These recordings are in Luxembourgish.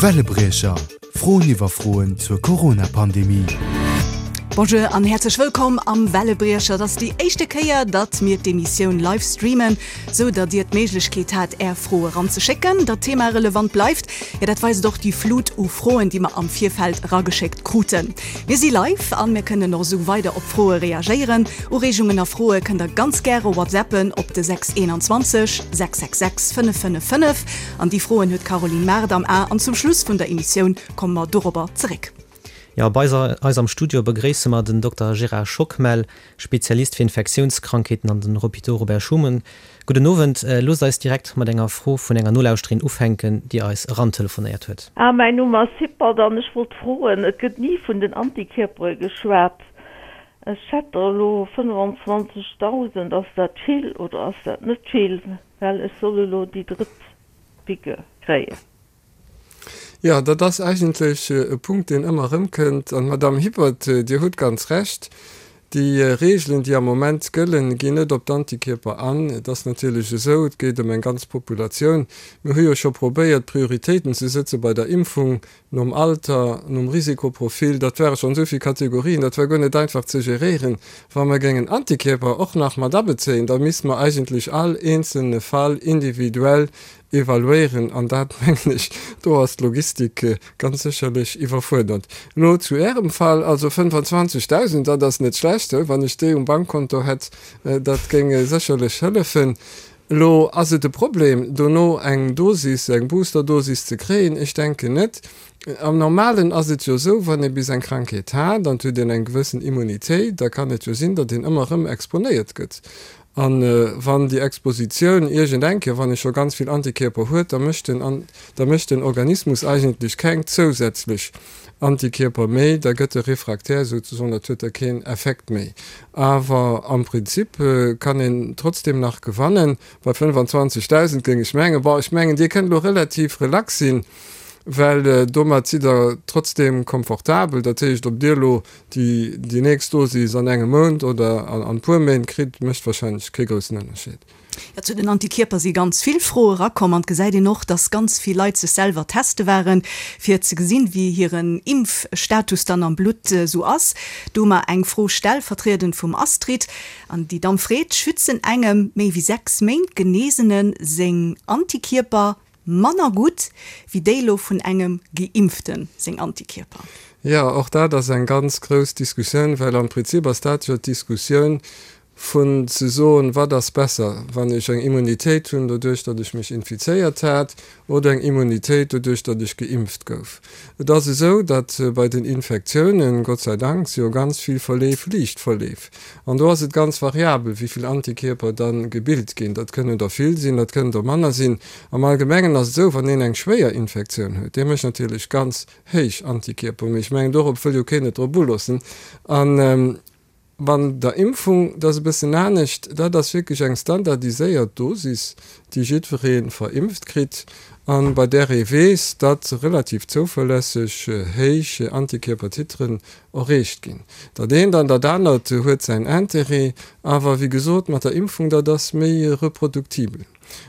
Wellebriecher, Froen iwwer Froen zur Corona-Pandemie. Bonjour an häerzlech wëllkomm am Wellebriecher. Et ass déi éischte Kéier, datt mir d'Emissioun live streamen, sou datt Dir d'Méiglechkeet hat, Är Froe ranzeschécken. Datt d'Thema relevant bleift, jo dat weist och déi Flut u Froen, déi mer am Virfeld erageschéckt kruten. Mir si live an mir kënnen och esou weider op Froe reagéieren. Ureegungen a Froe kënnt der ganz gäre whatsappen op de 621 666 555. An déi Froen huet d'Caroline Mart am A an zum Schluss vun der Emissioun komme mer dorobber zeréck. Jo, bei eis am Studio begréisse mer den Dokter Gérard Schockmel, Spezialist fir Infektiounskrankheeten an den Hôpitaux Robert Schuman. Gudden Owend. Loosst eis direkt mat enger Fro vun enger Nolauschterin ufänken, déi eis erantelefonéiert huet. Ah, mäin Numm ass Hippert an ech wollt froen, et gëtt ni vun den Antikierpere geschwat. Ech hätt der elo 25.000, ass dat vill oder ass dat net vill, well ech soll elo déi drëtt Piqûre kréien. Jo, dat ass eigentlech e Punkt, deen ëmmer erëmkënnt. An, Madamm Hippert, Dir hutt ganz Recht, déi Regeln, déi am Moment gëllen, ginn net op d'Antikierper an. Et ass natierlech esou, et geet ëm eng ganz Populatioun. Mir hu jo scho probéiert, Prioritéiten ze sëtze bei der Impfung, nom Alter, nom Risikoprofil. Dat ware schonn esou vill Kategorien, dat war guer net einfach ze geréieren. Wa mer géingen Antikierper och nach mat abezéien, da misste mer eigentlech all eenzelne Fall individuell evaluéieren, an dat, mengen ech, do ass d'Logistik ganz sécherlech iwwerfuerdert. Elo zu Ärem Fall, also 25.000, dat ass net schlecht, wann ech déi um Bankkonto hätt, dat géing sécherlech hëllefen. Elo ass et e Problem, dono eng Dosis, eng Boosterdosis ze kréien? Ech denken net. Am Normalen ass et jo esou, wann ee bis eng Krankheet hat an et huet een eng gewëssen Immunitéit, da kann et jo sinn, datt een ëmmer erëm exponéiert gëtt. A wann déi Expositioun iergend eng Kéier, wann ee scho ganz vill Antikierper huet, da mécht den, da mécht den Organismus eigentlech keng zousätzlech Antikierper méi, da gëtt e refraktär souzesoen, dat huet da keen Effekt méi. Awer am Prinzip kann een trotzdeem nach gewannen. Bei 25.000 géing ech mengen, bon, ech mengen Dir kënnt elo relativ relax sinn, well domat sidd Der trotzdeem komfortabel. Dat heescht, ob Dir elo déi déi nächst Dosis an engem Mount oder an puer Méint kritt, mécht wahrscheinlech kee groussen Ënnerscheed. Jo, zu den Antikierper si ganz vill Froe erakomm an et gesäit een och, dass ganz vill Leit sech selwer teste waren, fir ze gesinn, wéi hiren Impfstatus dann am Blutt esou ass. Do hu mer eng Fro stellvertriedend vum Astrid an déi Damm freet, Schützen engem méi wéi 6 Méint Genesene seng Antikierper Manner gutt wéi déi lo vun engem Geimpften seng Antikierper. Jo, och dat ass eng ganz grouss Diskussioun, well am Prinzip ass dat jo d'Diskussioun vun ze soen, wat ass besser, wann ech eng Immunitéit hunn doduerch, datt ech mech infizéiert hat, oder eng Immunitéit doduerch, datt ech geimpft gouf. Et ass esou, datt bei den Infektiounen, Gott sei Dank, si jo ganz vill Verleef liicht Verleef. An do ass et ganz variabel, wéi vill Antikierper da gebilt ginn. Dat kënnen der vill sinn, dat kënnen der manner sinn. Am Allgemengen ass et esou, wann een eng schwéier Infektioun huet, dee mécht natierlech ganz héich Antikierper. Mee ech mengen, dorop wëll jo keen et drop uloossen. A wann der Impfung, dat ass e bëssen anescht, dat ass wierklech eng standardiséiert Dosis, déi jiddweree verimpft kritt a bei där ee weess, datt relativ zouverlässeg héich Antikierpertiteren erreecht ginn. Dat eent an dat anert huet säin Intérêt, awer wéi gesot, mat der Impfung, dat ass méi reproduktibel.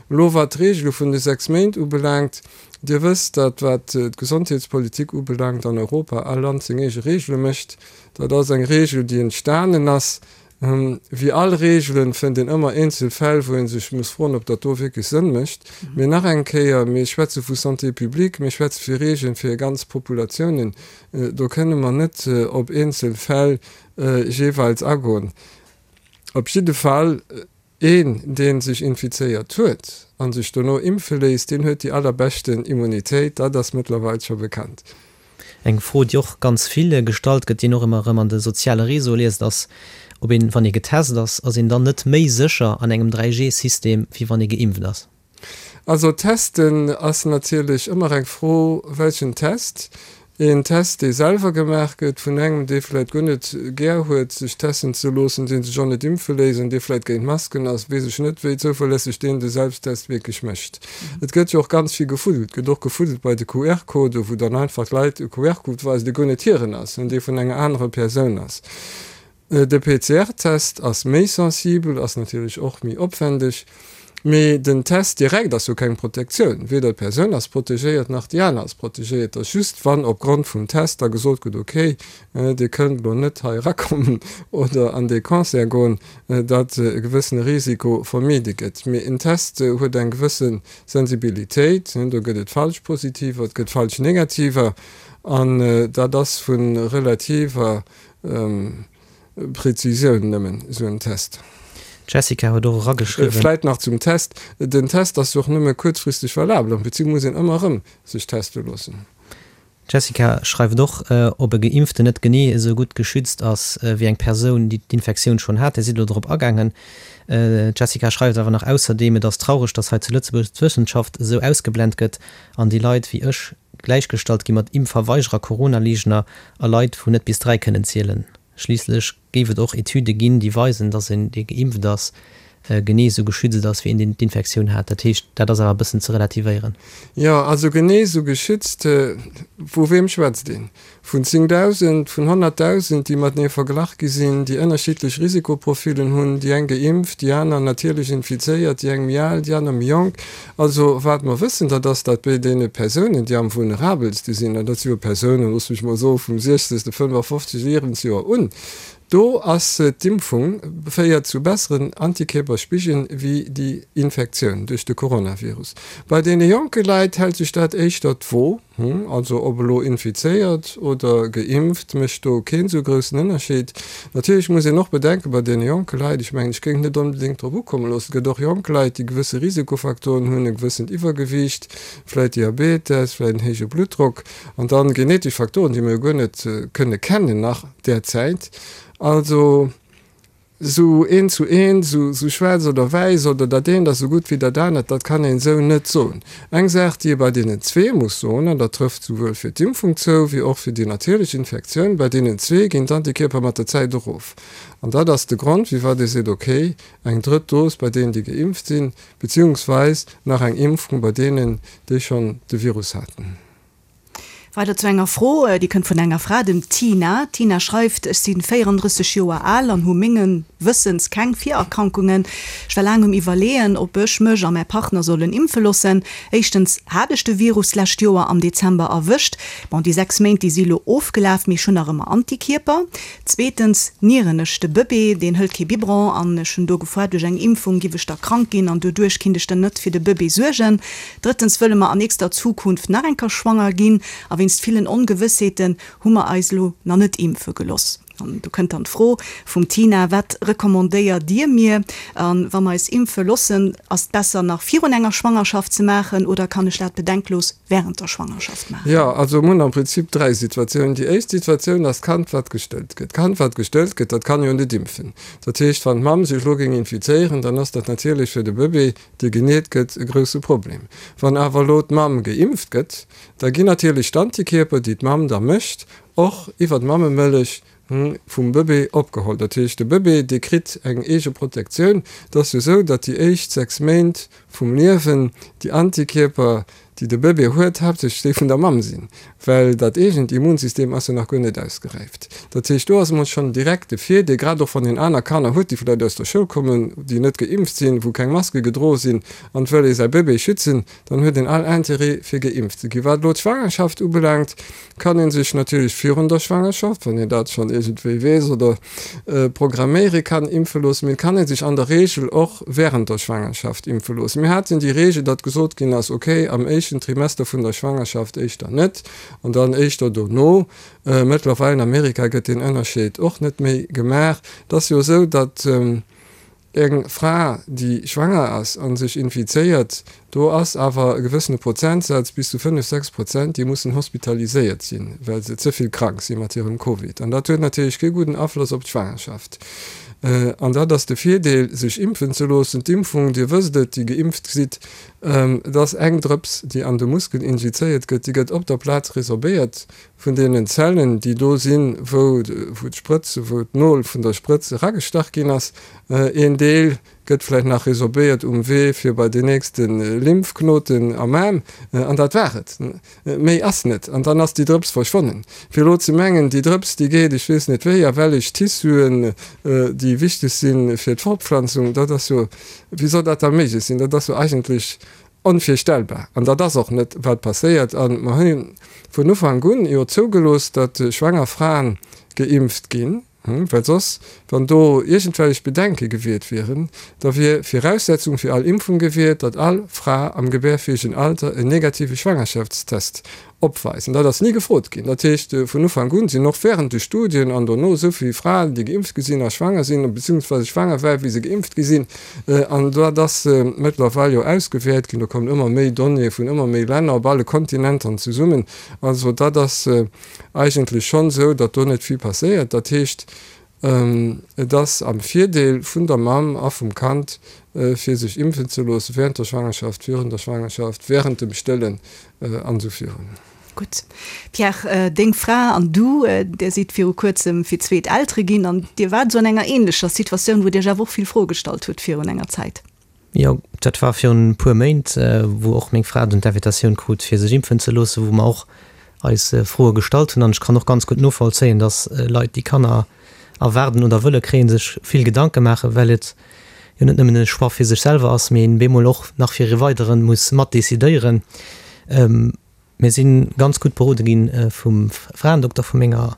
Elo wat d'Regele vun de 6 Méint ubelaangt, Dir wësst, datt wat d'Gesondheetspolitik ubelaangt an Europa all Land seng eege Regele mécht. Dat ass eng Regel, déi entstanen ass. Wéi all Regelen fënnt een ëmmer eenzel Fäll, wou ee sech muss froen, ob dat do wierklech Sënn mécht. Mee nach eng Kéier, mir schwätze vu Santé publique, mir schwätze vu Regelen fir ganz Populatiounen. Do kënne mer net op eenzel Fäll jeeweils agoen. Op jidde Fall, een, dee sech infizéiert huet a sech dono impfe léisst, deen huet déi allerbeschten Immunitéit. Dat ass mëttlerweil scho bekannt. Eng Fro, déi och ganz vill gestallt gëtt, déi een och ëmmer erëm an de soziale Réseaue liest, ass, ob een, wann ee getest ass, ass een dann net méi sécher an engem 3G-System, wéi wann ee geimpft ass? Also testen ass natierlech ëmmer eng Fro, welchen Test. Een Test, dee selwer gemaach gëtt vun engem, dee vläicht guer net gär huet, sech testen ze loossen, dee sech och net impfe léisst an dee vläicht géint Masken ass, weess ech net, wéi zouverlässeg deen de Selbsttest wierklech mécht. Et gëtt jo och ganz vill gefuddelt. Et gëtt och gefuddelt bei de QR-Codë, wou dann einfach d'Leit e QR-Code weisen, dee guer net hiren ass, dee vun enger anerer Persoun ass. De PCR-Test ass méi sensibel, ass natierlech och méi opwendeg. Mee den Test direkt ass jo keng Protektioun. Weder d'Persoun ass protegéiert, nach déi aner ass protegéiert. Et ass just, wann opgrond vum Test da gesot gëtt, okay, Dir kënnt elo net hei erakommen oder an dee Concert goen, datt e gewëssene Risiko vermide gëtt. Mee en Test huet eng gewësse Sensibilitéit, do gëtt et falsch Positiver, et gëtt falsch Negativer an dat ass vu relativer Prezisioun nëmmen esou en Test. D'Jessica huet och erageschriwwen. Vläit nach zum Test, Den Test ass jo och nëmme kuerzfristeg valabel. Am Prinzip muss een ëmmer erëm sech teste loossen. D'Jessica schreift och, ob e Geimpften net genee esou gutt geschützt ass wéi eng Persoun, déi d'Infektioun schonn hat. Dir sidd elo drop agaangen. D'Jessica schreift awer nach ausserdeem, Et ass traureg, datt hei zu Lëtzebuerg d'Wëssenschaft esou ausgeblent gëtt an déi Leit wéi ech gläichgestallt gi mat Impfverweigerer, Corona-Leegner a Leit, wou net bis 3 kënnen zielen. Schliisslech géif et och Etüde ginn, déi weisen, datt een, dee geimpft ass, genee esou geschützt ass wéi een, deen d'Infektioun hat. Dat heescht, dat ass awer e bëssen ze relativéieren. Jo, also genee esou geschützt, vu weem schwätzt een? Vun 10.000, vun 100.000, déi matenee verglach gi sinn, déi ënnerschiddlech Risikoprofilen hunn, déi eng geimpft, déi aner natierlech infizéiert, déi eng méi al, déi aner méi jonk. Also wat mer wëssen, dat ass, datt bei deene Persounen, déi am vulnerabelste sinn, an dat si jo Persounen, looss mech mol soen, vum 60., 55. Liewensjoer un, do ass d'Impfung féiert zu besseren Antikierperspigelen wéi déi Infektioun duerch de Coronavirus. Bei deene jonke Leit hält sech dat éischter d'Wo. Also ob elo infizéiert oder geimpft, mécht do keen esou groussen Ënnerscheed. Natierlech muss een och bedenken, bei deene jonke Leit, ech mengen, ech géing et net onbedéngt drop ukomme loossen, et gëtt och jonk Leit, déi gewësse Risikofaktoren hunn, e gewëssent Iwwergewiicht, vläit Diabetes, vläit en héije Bluttdrock an dann genetesch Faktoren, déi mer jo guer net kënne kennen nach derzäit. Also. Sou eent zu eent, sou schwaarz oder wäiss oder dat eent ass sou gutt wéi dat anert, dat kann een esou net soen. Eng Saach, déi ee bei deenen zwee muss soen, an dat trëfft souwuel fir d'Impfung zou wéi och fir déi natierlech Infektioun, bei deenen zwee ginn d'Antikierper mat der Zäit erof. An dat ass de Grond, firwat ee seet, okay, eng drëtt Dos bei deenen, déi geimpft sinn, beziehungsweis nach eng Impfung bei deenen, déi schonn de Virus haten. Weider zu enger Fro, déi kënnt vun enger Fra, dem Tina. D'Tina schreift, Ech si 34 Joer al an hu mengen Wëssens keng Virerkrankungen. Ech war laang um Iwwerleeën, ob ech mech a mäi Partner sollen impfe loossen. Éischtens hat ech de Virus d'lescht Joer am Dezember erwëscht. Bon, déi 6 Méint, déi si lo ofgelaf, mee ech hunn nach ëmmer Antikierper. Zweetens nieren ech de Bëbee, deen hëlt kee Biberon an ech hunn do gefoart, duerch eng Impfung giff ech da krank ginn an doduerch kinnt ech dann net fir de Bëbee suergen. Drëttens wëlle mer an nächster Zukunft nach eng Kéier schwanger ginn a wéinst villen Ongewëssheeten hu mer eis elo nach net impfe geloss. An do kënnt dann d'Fro vum Tina, Wat recommandéiert Dir mir? A wa mer eis impfe lossen, ass et besser nach virun enger Schwangerschaft ze maachen oder kann ech dat bedenklos während der Schwangerschaft maachen? Jo, also mir hunn am Prinzip 3 Situatiounen. Déi éischt Situatioun ass d'Kand wat gestëllt gëtt. D'Kand wat gestëllt gëtt, dat kann jo net impfen. Dat heescht, wann d'Mamm sech elo géing infizéieren, dann ass dat natierlech fir de Bëbee, dee geneet gëtt, e grousse Problem. Wann awer elo d'Mamm geimpft gëtt, da ginn natierlech d'Antikierper, déi d'Mamm da mécht, och iwwer d'Mammemëllech vum Bëbee opgeholl. Dat heescht, de Bëbee, dee kritt eng eege Protektioun. Et ass jo esou, datt déi éischt 6 Méint vum Liewen déi Antikierper, déi de Bëbee huet, haaptsächlech déi vun der Mamm sinn, well dat eegent Immunsystem ass jo nach guer net ausgeräift. Dat heescht, do ass emol schonn direkt de Virdeel, grad och wann een aner Kanner huet, déi vläicht aus der Schoul kommen, déi net geimpft sinn, wou keng Maske gedroe sinn, an et wëll ee säi Bëbee schützen, dann huet een all Interêt, fir geimpft ze ginn. Wat elo d'Schwangerschaft ubelaangt, kann ee sech natierlech virun der Schwangerschaft, wann een dat schonn iergendwéi weess oder programméiere kann, impfe loossen. Mee et kann ee sech an der Reegel och wärend der Schwangerschaft impfe loossen. Mir haten déi Reegel, datt gesot ginn ass, okay, am éischten Trimester vun der Schwangerschaft éischter net an dann éischter dono. Mëttlerweil an Amerika gëtt deen Ënnerscheed och net méi gemaach. Et ass jo esou, datt Eng Fra, déi schwanger ass a sech infizéiert, do ass awer e gewëssene Prozentsaz, bis zu 5, 6 Prozent, déi mussen hospitaliséiert sinn, well se ze vill krank si mat hirem Covid. An dat huet natierlech kee gudden Afloss op d'Schwangerschaft. An dat ass de Virdeel, sech impfen ze loossen. D'Impfung, Dir wësst et, déi geimpft sidd, et ass eng Drëps, déi an de Muskel injizéiert gëtt, déi gëtt op der Plaz resorbéiert Vun deenen Zellen, déi do sinn, wou d'Sprëtz, wou d'Nol vun der Sprëtz eragestach ginn ass, een Deel. Gëtt vläicht nach resorbéiert um Wee fir bei den nächste Lymphknoten am Aarm, an dat war et. Méi ass net. An dann ass déi Drëps verschwonnen. Fir elo ze mengen, déi Drëps, déi geet ech weess net wéi a wellech Tissuen, déi wichteg si fir d'Fortpflanzung, dat ass jo, wéi soll dat da méiglech sinn? Dat ass jo eigentlech onvirstellbar. An dat ass och net, wat passéiert. A mer hu vun Ufank un jo zougelooss, datt schwanger Fraen geimpft ginn. Well soss, wann do iergendwellech Bedenke gewiert wieren, da wier Viraussetzung fir all Impfung gewiert, datt all Fra am gebärfäegen Alter en negative Schwangerschaftstest opweist. An dat ass ni gefrot ginn. Dat heescht, vun Ufank un sinn och während de Studien an dono esou vill Fraen, déi geimpft gi sinn a schwanger sinn, beziehungsweise schwanger waren, wéi se geimpft gi sinn. An dat ass mëttlerweil jo ausgewäert ginn. Do kommen ëmmer méi Donnéeë vun ëmmer méi Länner op alle Kontinentern zesummen. Also dat ass eigentlech schonn esou, datt do net vill passéiert. Dat heescht, et ass am Virdeel vun der Mamm a vum Kand, fir sech impfen ze loossen, während der Schwangerschaft, virun der Schwangerschaft, während dem Stëllen an esou virun. Gutt. Pierre, deng Fra an du, där sidd viru kuerzem fir d'zweet Eltere ginn an Dir waart esou an enger änlecher Situatioun, wou Dir iech awer och vill Froe gestallt hutt virun enger Zäit. Jo, dat war virun e puer Méint, wou och meng Fra dunn d'Invitatioun krut, fir sech impfen ze loossen, wou mer och eis Froe gestallt hunn. An ech kann och ganz gutt novollzéien, dass Leit, déi Kanner erwaarden oder wëlle kréien, sech vill Gedanke maachen, well et jo net nëmmen e Choix fir sech selwer ass, mee een bemol och nach fir e weidere muss mat decidéieren. Mir si ganz gutt berode gi vum Fraendokter vu menger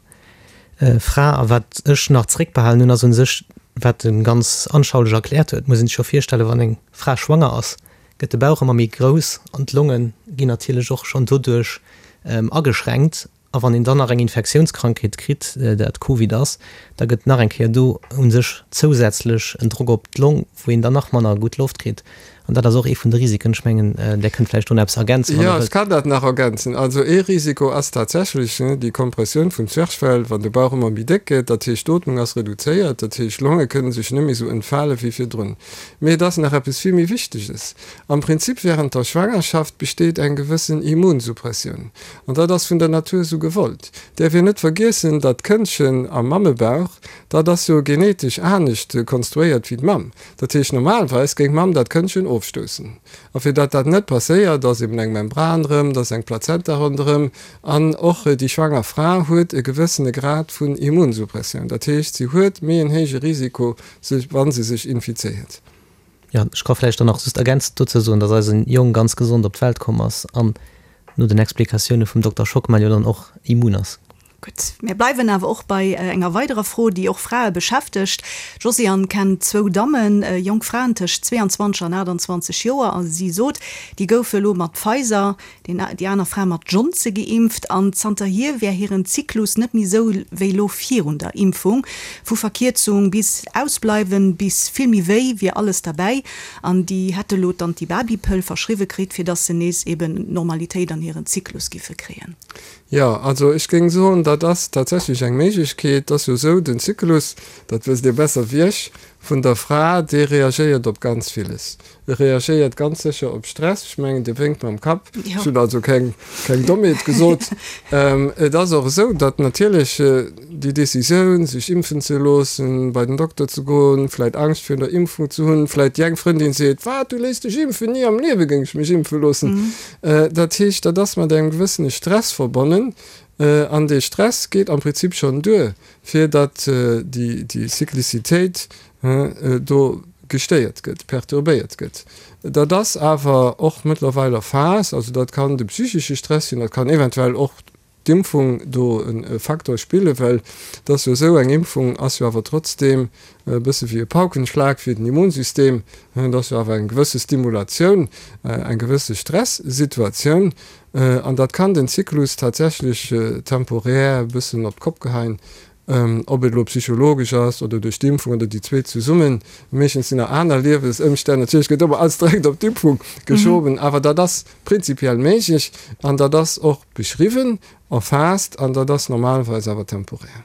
Fra. A wat ech nach zeréckbehalen hunn, ass u sech, wat e ganz anschaulich erkläert huet, muss een sech jo virstellen, wann eng Fra schwanger ass, gëtt de Bauch ëmmer méi grouss an d'Longe ginn natierlech och schonn doduerch ageschränkt. A wann een dann nach eng Infektiounskrankheet kritt, dat Covid ass, da gëtt nach eng Kéier do u sech zousätzlech en Drock op d'Long, wou een dann nach manner gutt Loft kritt. An dat ass och ee vun de Risiken. Ech mengen, Där kënnt vläicht do nach eppes ergänzen, wann Der wëllt. Jo, ech kann dat nach ergänzen. Also ee Risiko ass tatsächlech déi Kompressioun vum Zwerchfell, wann de Bauch ëmmer méi déck gëtt. Dat heescht, d'Ootmung ass reduzéiert, dat heescht, d'Longe kënne sech net méi esou entfale wéi virdrun. Mee et ass nach eppes vill méi Wichteges, Am Prinzip während der Schwangerschaft besteet eng gewëssen Immunsuppressioun. An dat ass vun der Natur esou gewollt. Däerf een net vergiessen, datt d'Këndchen am Mammebauch, dat ass jo genetesch anescht konstruéiert wéi d'Mamm. Dat heescht, normalweis géing d'Mamm dat Këndchen ofstoussen. A fir datt dat net passéiert, ass eben eng Membran rëm, da ass eng Plazenta ronderëm. An och déi schwanger Fra huet e gewëssene Grad vun Immunsuppressioun. Dat heescht, si huet méi en héije Risiko, sech, wa se sech infizéiert. Jo, ech ka vläicht dann nach just ergänzend dozou soen, dass eisen Jong ganz gesond op d'Welt komm ass an no den Explikatioune vum Dokter Schockmel jo dann och immun ass. Gutt, mir bleiwen awer och bei enger weiderer Fro, déi och Frae beschäftegt. D'Josiane kennt zwou Dammen, jonk Fraen tëscht 22 an 28 Joer, a si sot, déi goufe elo mat Pfizer, déi aner Fra mat Johnson geimpft an zanterhier wär hiren Zyklus net méi sou wéi lo virun der Impfung. Vu Verkierzung bis Ausbleiwen bis vill méi wéi wier alles derbäi an déi hätte lo d'Antibabypëll verschriwwe kritt, fir dass se nees eben Normalitéit an hiren Zyklus giffe kréien. Jo, also ech géing soen, dat ass tatsächlech eng Méiglechkeet. Et ass jo esou, den Zyklus, dat wësst Dir besser wéi ech, vun der Fra, dee reagéiert op ganz villes. E reagéiert ganz sécher op Stress. Ech mengen, Dir wénkt mam Kapp. Ech hunn also keng, keng Dommheet gesot. Et ass och esou, datt natierlech déi Decisioun, sech impfen ze loossen, bei den Dokter ze goen, vläicht Angscht virun der Impfung ze hunn, vläicht déi eng Frëndin seet, Wat, du léiss dech impfen? Ni am Liewe géing ech mech impfe loossen. Dat heescht, dat ass mat engem gewëssene Stress verbonnen. An dee Stress geet am Prinzip schonn duer, fir datt déi, déi Cyclicitéit do gestéiert gëtt, perturbéiert gëtt. Dat ass awer och mëttlerweil erfaasst, also dat kann de psychesche Stress sinn, dat kann eventuell och d'Impfung do e Facteur spillen, well et ass jo esou, eng Impfung ass jo awer trotzdeem e bësse wéi e Paukenschlag fir den Immunsystem, et ass jo awer eng gewësse Stimulatioun, eng gewësse Stressituatioun an dat kann den Zyklus tatsächlech temporär e bëssen op d'Kopp geheien. Ob et elo psychologesch ass oder duerch d'Impfung oder déi zwee zesummen, meeschtens sinn nach aner Liewesëmstänn, natierlech gëtt ëmmer alles direkt op d'Impfung geschoben, awer dat ass prinzipiell méiglech an dat ass och beschriwwen, erfaasst an dat ass normalerweis awer temporär.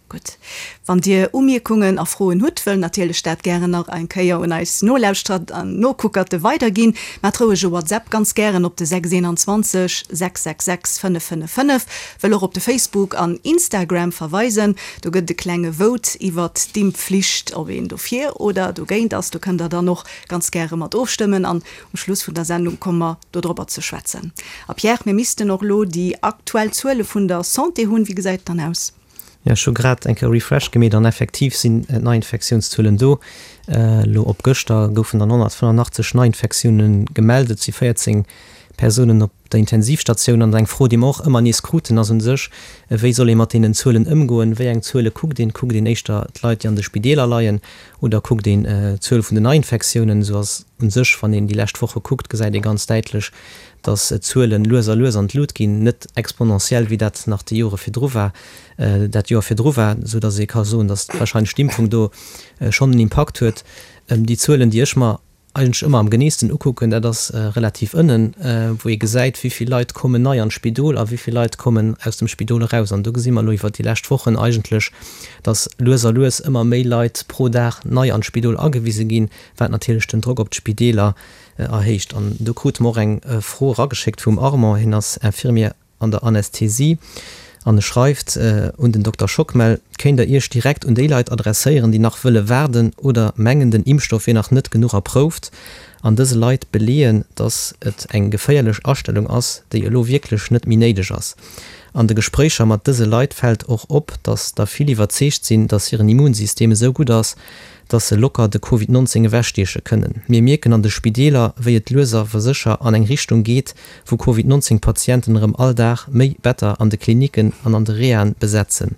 Gutt. Wann Dir Umierkungen a Froen hutt, wëll natierlech dat gären nach eng Kéier un eis Nolauschterer an Nokuckerte weiderginn. Maacht roueg e WhatsApp, ganz gären op de 621 666 555. Wëll och op de Facebook an Instagram verweisen. Do gëtt et e klenge Vote iwwert d'Impfflicht, ob een dofir oder dogéint ass. Do kënnt der dann och ganz gäre mat ofstëmmen an um Schluss vun der Sendung komme mer dodropper ze schwätzen. A Pierre, mir missten och elo déi aktuell Zuele vun der Santé hunn. Wéi gesäit et dann aus? Jo, ech hu grad eng Kéier Refresh gemeet an effektiv sinn d'Neiinfektiounszuelen do. Elo op gëschter goufen dann 185 Neiinfektioune gemellt. Et si 14 Persounen op der Intensivstatioun. An eng Fro, déi mer och ëmmer nees kruten, ass u sech, Wéi soll ee mat deenen Zuelen ëmgoen? Wéi eng Zuele kuckt een? Kuckt een éischter d'Leit, déi an de Spideeler leien oder kuckt een d'Zuel vun den Neiinfektiounen? Esou ass u sech, wann een déi lescht Woche kuckt, gesäit ee ganz däitlech, dass d'Zuelen lues a lues an d'Lut ginn, net exponentiell, wéi dat nach déi Jore virdru war, dat Joer virdru war, esou dass ee ka soen, dass wahrscheinlech d'Impfung do schonn en Impakt huet. Déi Zuelen, déi ech mer eigentlech ëmmer am geneesten ukucken, dat ass relativ ënnen, wou ee gesäit, wéi vill Leit kommen nei an d'Spidol a wéi vill Leit kommen aus dem Spidol eraus. An do gesi mer elo iwwert déi lescht Wochen eigentlech, dass lues a lues ëmmer méi Leit pro Dag nei an d'Spidol agewise ginn, wat natierlech den Drock op d'Spideeler erhéicht. An do krute mer och eng Fro erageschéckt vum Armand, hien ass Infirmier an der Anästhesie an e schreift un den Dokter Schockmel, Kéint der Iech direkt un déi Leit adresséieren, déi nach wëlle waarden oder mengen, den Impfstoff wier nach net genuch erprouft, an dëse Leit beleeën, datt et eng geféierlech Astellung ass, déi elo wierklech net méi néideg ass. An de Gespréicher mat dëse Leit fält och op, datt der vill iwwerzeegt sinn, datt hiren Immunsystem esou gutt ass, dass se locker de Covid 19 ewechstieche kënnen. Mir mierken an de Spideeler, wéi et lues awer sécher an eng Richtung geet, wou Covid 19 Patienten erëm all Dag méi Better an de Klinicken an an de Rehaen besetzen.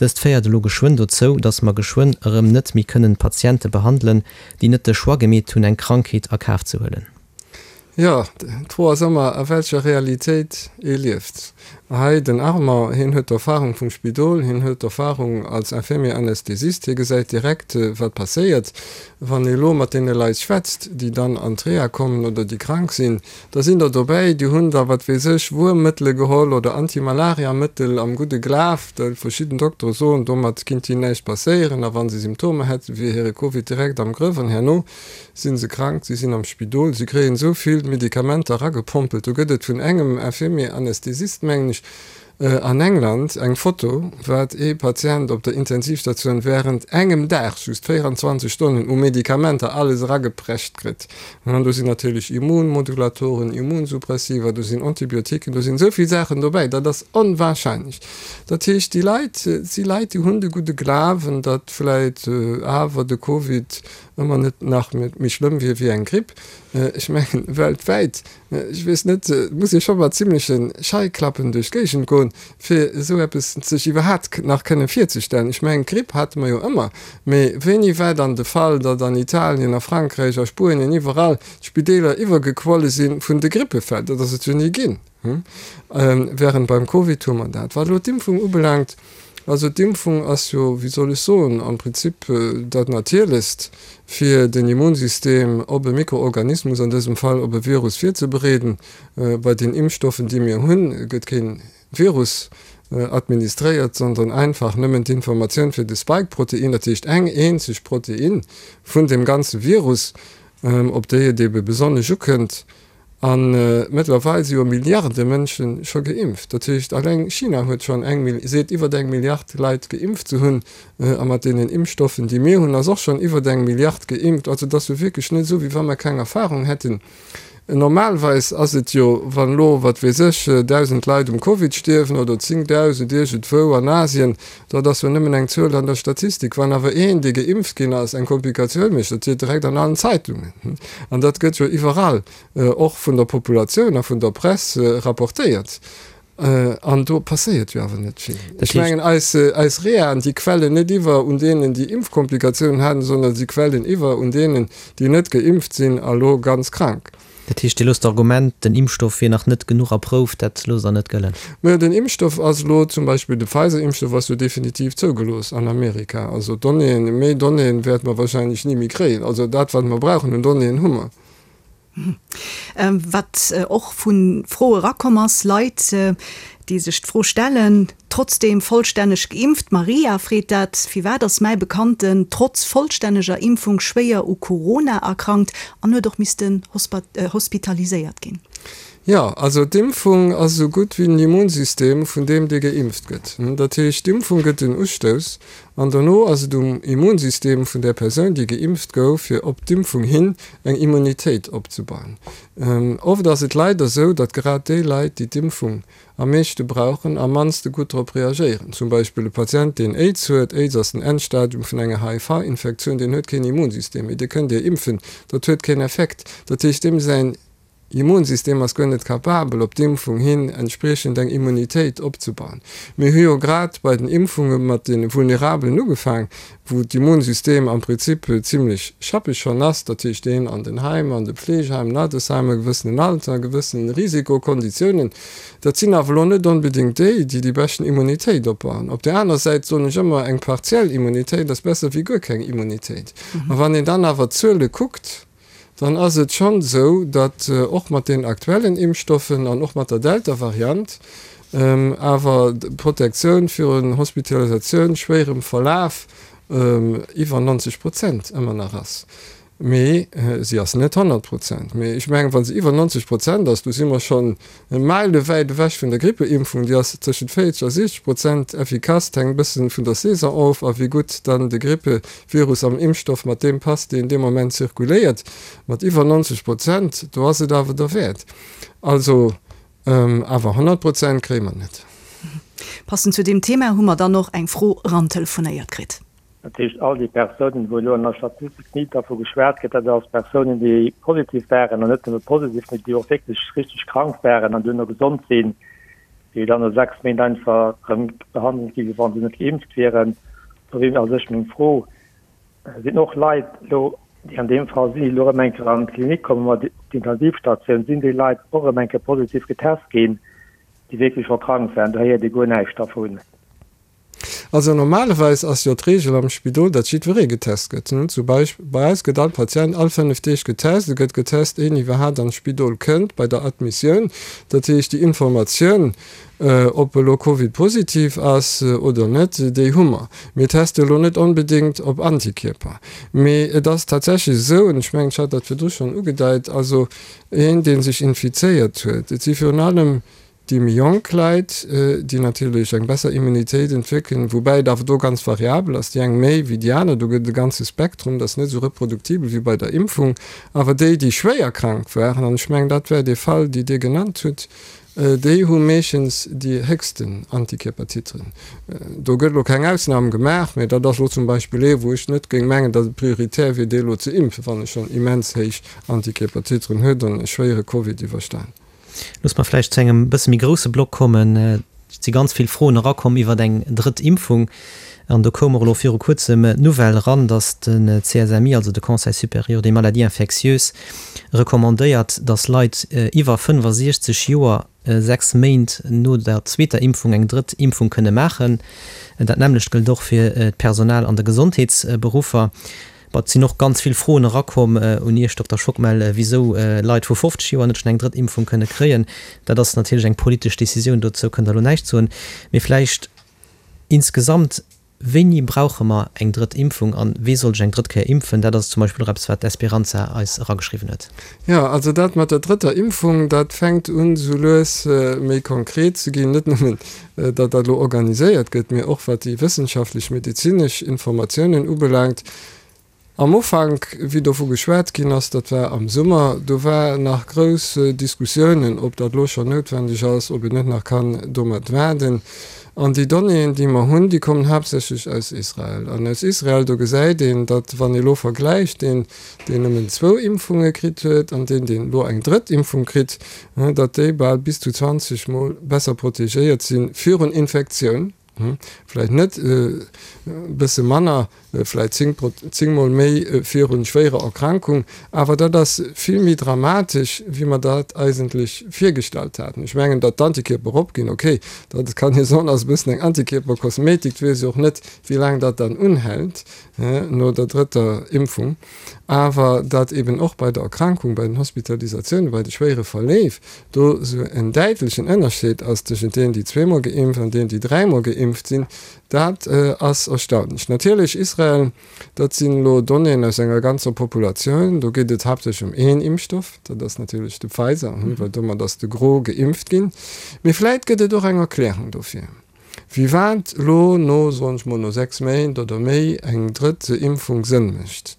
Dëst féiert elo geschwënn dozou, dass mer geschwënn erëm net méi kënnen Patiente behandelen, déi net de Choix gemeet hunn eng Krankheet a Kaf ze huelen. Jo, d'Fro ass ëmmer, a welcher Realitéit ee lieft. Hei den Armand, hien huet d'Erfahrung vum Spidol, hien huet d'Erfahrung als Infirmier Anästhesist, hie gesäit direkt, wat passéiert. Wann ee lo mat deene Leit schwätzt, déi dann an d'Reha kommen oder déi krank sinn, da sinn der dobäi, déi hunn da, wat weess ech, Wuermmëttele geholl oder Antimalariamëttel am gudde Glaf, well verschidden Doktere soen, domat kinnt hinnen näischt passéieren a wa se Symptomer hätten, wier hire Covid direkt am Grëff an herno Sinn se krank, si sinn am Spidol, si kréien esou vill Medikamenter eragepompelt. Do gëtt et vun engem Infirmier Anästhesist, mengen ech, an England eng Foto, wat ee Patient op der Intensivstatioun während engem Dag, just 24 Stonnen, u Medikamenter alles erageprescht kritt. An do sinn natierlech Immunmodulatoren, Immunsuppressiva, do sinn Antibiotiquen, do sinn esou vill Saachen dobäi, dat ass onwahrscheinlech. Dat heescht, déi Leit si Leit, déi hunn de gudde Glawen, datt vläit awer de Covid ëmmer net nach méi schlëmm wier wéi eng Gripp. Ech mengen, weltwäit, ech weess net, et muss ee scho mat zimleche Scheiklappen duerch d'Géigend goen, fir esou eppes sech iwwerhaapt nach kënne virzestellen. Ech mengen, d'Gripp hate mer jo ëmmer, mee wéini war dann de Fall, datt an Italien, a Frankräich, a Spuenien, iwwerall d'Spideeler iwwergequolle si vun de Grippefäll? Dat ass et jo ni ginn. Während beim Covid hu mer dat. Wat elo d'Impfung ubelaangt, also d'Impfung ass jo, wéi soll ech soen, am Prinzip dat Natierlechst, fir den Immunsystem op e Mikroorganismus, an dësem Fall op e Virus virzebereeden. Bei den Impfstoffen, déi mir hunn, gëtt kee Virus administréiert, sondern einfach nëmmen d'Informatioun fir de Spike-Protein, dat heescht eng eenzeg Protein vun deem ganze Virus, op déi et ebe besonnesch ukënnt. A mëttlerweil si jo Milliarde Mënsche scho geimpft. Dat heescht, alleng China huet schonn eng, seet iwwer eng Milliard Leit geimpft ze hunn. A mat deenen Impfstoffen, déi mir hunn, ass och schonn iwwer eng Milliard geimpft. Also et ass jo wierklech net esou, wéi wa mer keng Erfahrung hätten. Normalweis ass et jo, wann elo, wat weess ech, 1.000 Leit um Covid stierwen oder 10.000 iergendwou an Asien, dat ass jo nëmmen eng Zuel an der Statistik. Wann awer een, dee geimpft ginn ass, eng Komplikatioun mécht, dat steet direkt an allen Zeitungen. An dat gëtt jo iwwerall, och vun der Populatioun a vun der Press, rapportéiert. An do passéiert jo awer net vill. Ech mengen, eis, eis Rehaen, déi quellen net iwwer un deenen, déi Impfkomplikatiounen haten, sondern si quellen iwwer un deenen, déi net geimpft sinn a lo ganz krank. Dat heescht, Dir loosst d'Argument, den Impfstoff wier nach net genuch erprouft, dat loosst Der net gëllen? Mä den Impfstoff ass elo, zum Beispill de Pfizer-Impfstoff ass jo definitiv zougelooss an Amerika. Also Donnéeën, méi Donnéeën wäerte mer wahrscheinlech ni méi kréien. Also dat, wat mer brauchen un Donnéeën, hu mer. Wat och vu Froe erakomm ass, Leit, déi sech d'Fro stellen. Trotzdeem vollstänneg geimpft? D'Maria freet dat. Firwat ass mäi Bekannten trotz vollstänneger Impfung schwéier u Corona erkrankt an huet och missten hospitaliséiert ginn? Jo, also d'Impfung ass esou gutt wéi den Immunsystem vun deem, dee geimpft gëtt. Dat heescht, d'Impfung gëtt en Ustouss an dono ass et um Immunsystem vun där Persoun, déi geimpft gouf, fir op d'Impfung hin eng Immunitéit opzebauen. Oft ass et leider esou, datt grad déi Leit, déi d'Impfung am meeschte brauchen, am mannste gutt drop reagéieren. Zum Beispill e Patient, deen Aids huet, Aids ass den Endstadium vun enger HIV-Infektioun, deen huet keen Immunsystem méi, dee kënnt Dir impfen, dat huet keen Effekt. Dat heescht, deem säin Immunsystem ass guer net capabel, op d'Impfung hin entspriechend eng Immunitéit opzebauen. Mir hu jo grad bei den Impfunge mat de Vulnerabelen ugefaang, wou d'Immunsystem am Prinzip zimlech schappeg schonn ass, dat heescht deen an den Heimer, an de Pflegeheimen, Altersheimer, e gewëssenen Alter, gewëssen Risikokonditiounen. Dat sinn awer elo net onbedéngt déi, déi déi beschten Immunitéit opbauen. Op där aner Säit soen ech ëmmer, eng partiell Immunitéit ass besser wéi guer keng Immunitéit. A wann een dann awer d'Zuele kuckt, dann ass et schonn esou, datt och mat deenen aktuellen Impfstoffen an och mat der Delta-Variant awer d'Protektioun virun Hospitalisatioun, schwéierem Verlaf iwwer 90 Prozent ëmmer nach ass. Mee si ass net 100 Prozent. Mee ech mengen, wa se iwwer 90 Prozent ass, do si mer schonn Meilewäit ewech vun der Grippeimpfung, déi ass tëschent 40 a 60 Prozent effikass, et hänkt e bëssen vun der Saison of a wéi gutt dann de Grippevirus am Impfstoff mat deem passt, deen dee Moment zirkuléiert. Mat iwwer 90 Prozent, do ass et awer derwäert. Also, awer 100 Prozent kréie mer net. Passend zu deem Thema hu mer dann och eng Fro erantelefonéiert kritt. Dat heescht, all déi Persounen, wou elo an der Statistik ni dervu geschwat gëtt, dat ass Persounen, déi positiv waren, an net nëmme positiv, mee déi och wierklech richteg krank waren an duerno gesond sinn, déi dann no 6 Méint einfach erëm behandelt gi wéi wa se net geimpft wieren. Do wier a sech meng Fro, Sinn och Leit elo, déi an deem Fall sinn, déi elo erëm eng Kéier an d'Klinik kommen, op d'Intensivstatioun, sinn déi Leit och erëm eng Kéier positiv getest ginn, déi wierklech scho krank waren? Do héiert ee guer näischt dervun. Also normalerweis ass jo d'Reegel am Spidol, datt jiddweree getest gëtt. Zum Beispill bei eis gëtt all Patient all 5 Deeg getest. E gëtt getest, éien iwwerhaapt an d'Spidol kënnt, bei der Admissioun. Dat heescht, déi Informatioun, ob e lo Covid-positiv ass oder net, déi hu mer. Mir teste lo net onbedéngt op Antikierper. Mee et ass tatsächlech esou, an ech mengen, ech hat dat virdru schonn ugedeit, also een, dee sech infizéiert huet, et si virun allem Déi méi jonk Leit, déi natierlech eng besser Immunitéit entwéckelen, woubäi et awer do ganz variabel ass, déi eng méi wéi déi aner, do gëtt et e ganze Spektrum, dat ass net esou reproduktibel wéi bei der Impfung, awer déi, déi schwéier krank waren, an ech mengen, dat war dee Fall, déi Dir genannt hutt, déi hu meeschtens déi héchsten Antikierpertiteren. Do gëtt elo keng Ausnam gemaach, mä dat ass elo zum Beispill ee, wou ech net géing mengen, datt et prioritär wier, dee elo ze impfen, wann e schonn immens héich Antikierpertiteren huet an e schwéiere Covid iwwerstan. Looss mer vläicht zu engem bësse méi grousse Block kommen. Et si ganz vill Froen erakomm iwwer eng drëtt Impfung. An do koum och elo viru Kuerzem d'Nouvelle eran, datt de CSMI, also de Conseil supérieur des maladies infectieuses, recommandéiert, datt Leit iwwer 65 Joer 6 Méint no der zweeter Impfung eng drëtt Impfung kënne maachen. Dat nämmlecht gëllt och fir d'Personal an de Gesondheetsberuffer. Bon, et sinn och ganz vill Froen erakomm un Iech, Dokter Schockmel, wisou Leit vu 50 Joer net schonn eng drëtt Impfung kënne kréien. Dat ass natierlech eng politesch Decisioun, dozou kënnt Der elo näischt soen. Mee vläicht insgesamt, Wéini brauche mer eng drëtt Impfung a wee soll sech eng drëtt Kéier impfen? Dat ass zum Beispill och eppes, wat d'Esperanza eis erageschriwwen huet. Jo, also dat mat der drëtter Impfung, dat fänkt un esou lues méi konkret ze ginn. Net nëmmen, datt dat elo organiséiert gëtt, mee och wat déi wëssenschaftlech medezinesch Informatiounen ubelaangt. Am Ufank, wéi dovu geschwat ginn ass, dat war am Summer, do war nach grouss Diskussiounen, ob dat elo schonn noutwendeg ass, ob een net nach kann domat waarden. An déi Donnéeën, déi mer hunn, déi kommen haaptsächlech aus Israel. An aus Israel, do gesäit een, datt, wann ee elo vergläicht, deen, deen nëmmen zwou Impfunge kritt huet an deen, deen elo eng drëtt Impfung kritt, datt déi bal bis zu 20 Mol besser protegéiert si virun Infektioun, vläicht net e bësse manner. Vläit zéngmol méi virun schwéierer Erkrankung. Awer dat ass vill méi dramatesch, wéi mer dat eigentlech virgestallt haten. Ech mengen, datt d'Antikierper eropginn, okay, dat kann ee soen, ass e bëssen eng Antikierperkosmetik. Et weess ee och net, wéi laang dat dann unhält no der drëtter Impfung. Awer datt eben och bei der Erkrankung, bei den Hospitalisatiounen, bei de schwéiere Verleef do esou en däitlechen Ënnerscheed ass tëschent deenen, déi zweemol geimpft an deenen, déi dräimol geimpft sinn, Dat ass erstaunlech. Natierlech, Israel, dat sinn elo Donnéeën aus enger ganzer Populatioun. Do geet et haaptsächlech ëm een Impfstoff, dat ass natierlech de Pfizer, well domat ass de Gros geimpft ginn. Mee vläit gëtt et och eng Erklärung dofir, firwat elo no, soen ech mol, no 6 Méint oder méi eng drëtt Impfung Sënn mécht.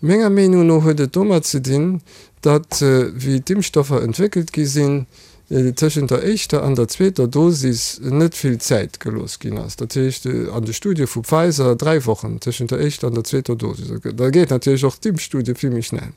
Menger Meenung no huet et domat ze dinn, datt wéi d'Impfstoffer entwéckelt gi sinn, tëschent der éischter an der zweeter Dosis net vill Zäit gelooss ginn ass. Dat heescht an de Studie vu Pfizer 3 Wochen tëschent der éischter an der zweeter Dosis. Da geet natierlech och d'Impfstudie vill méi schnell.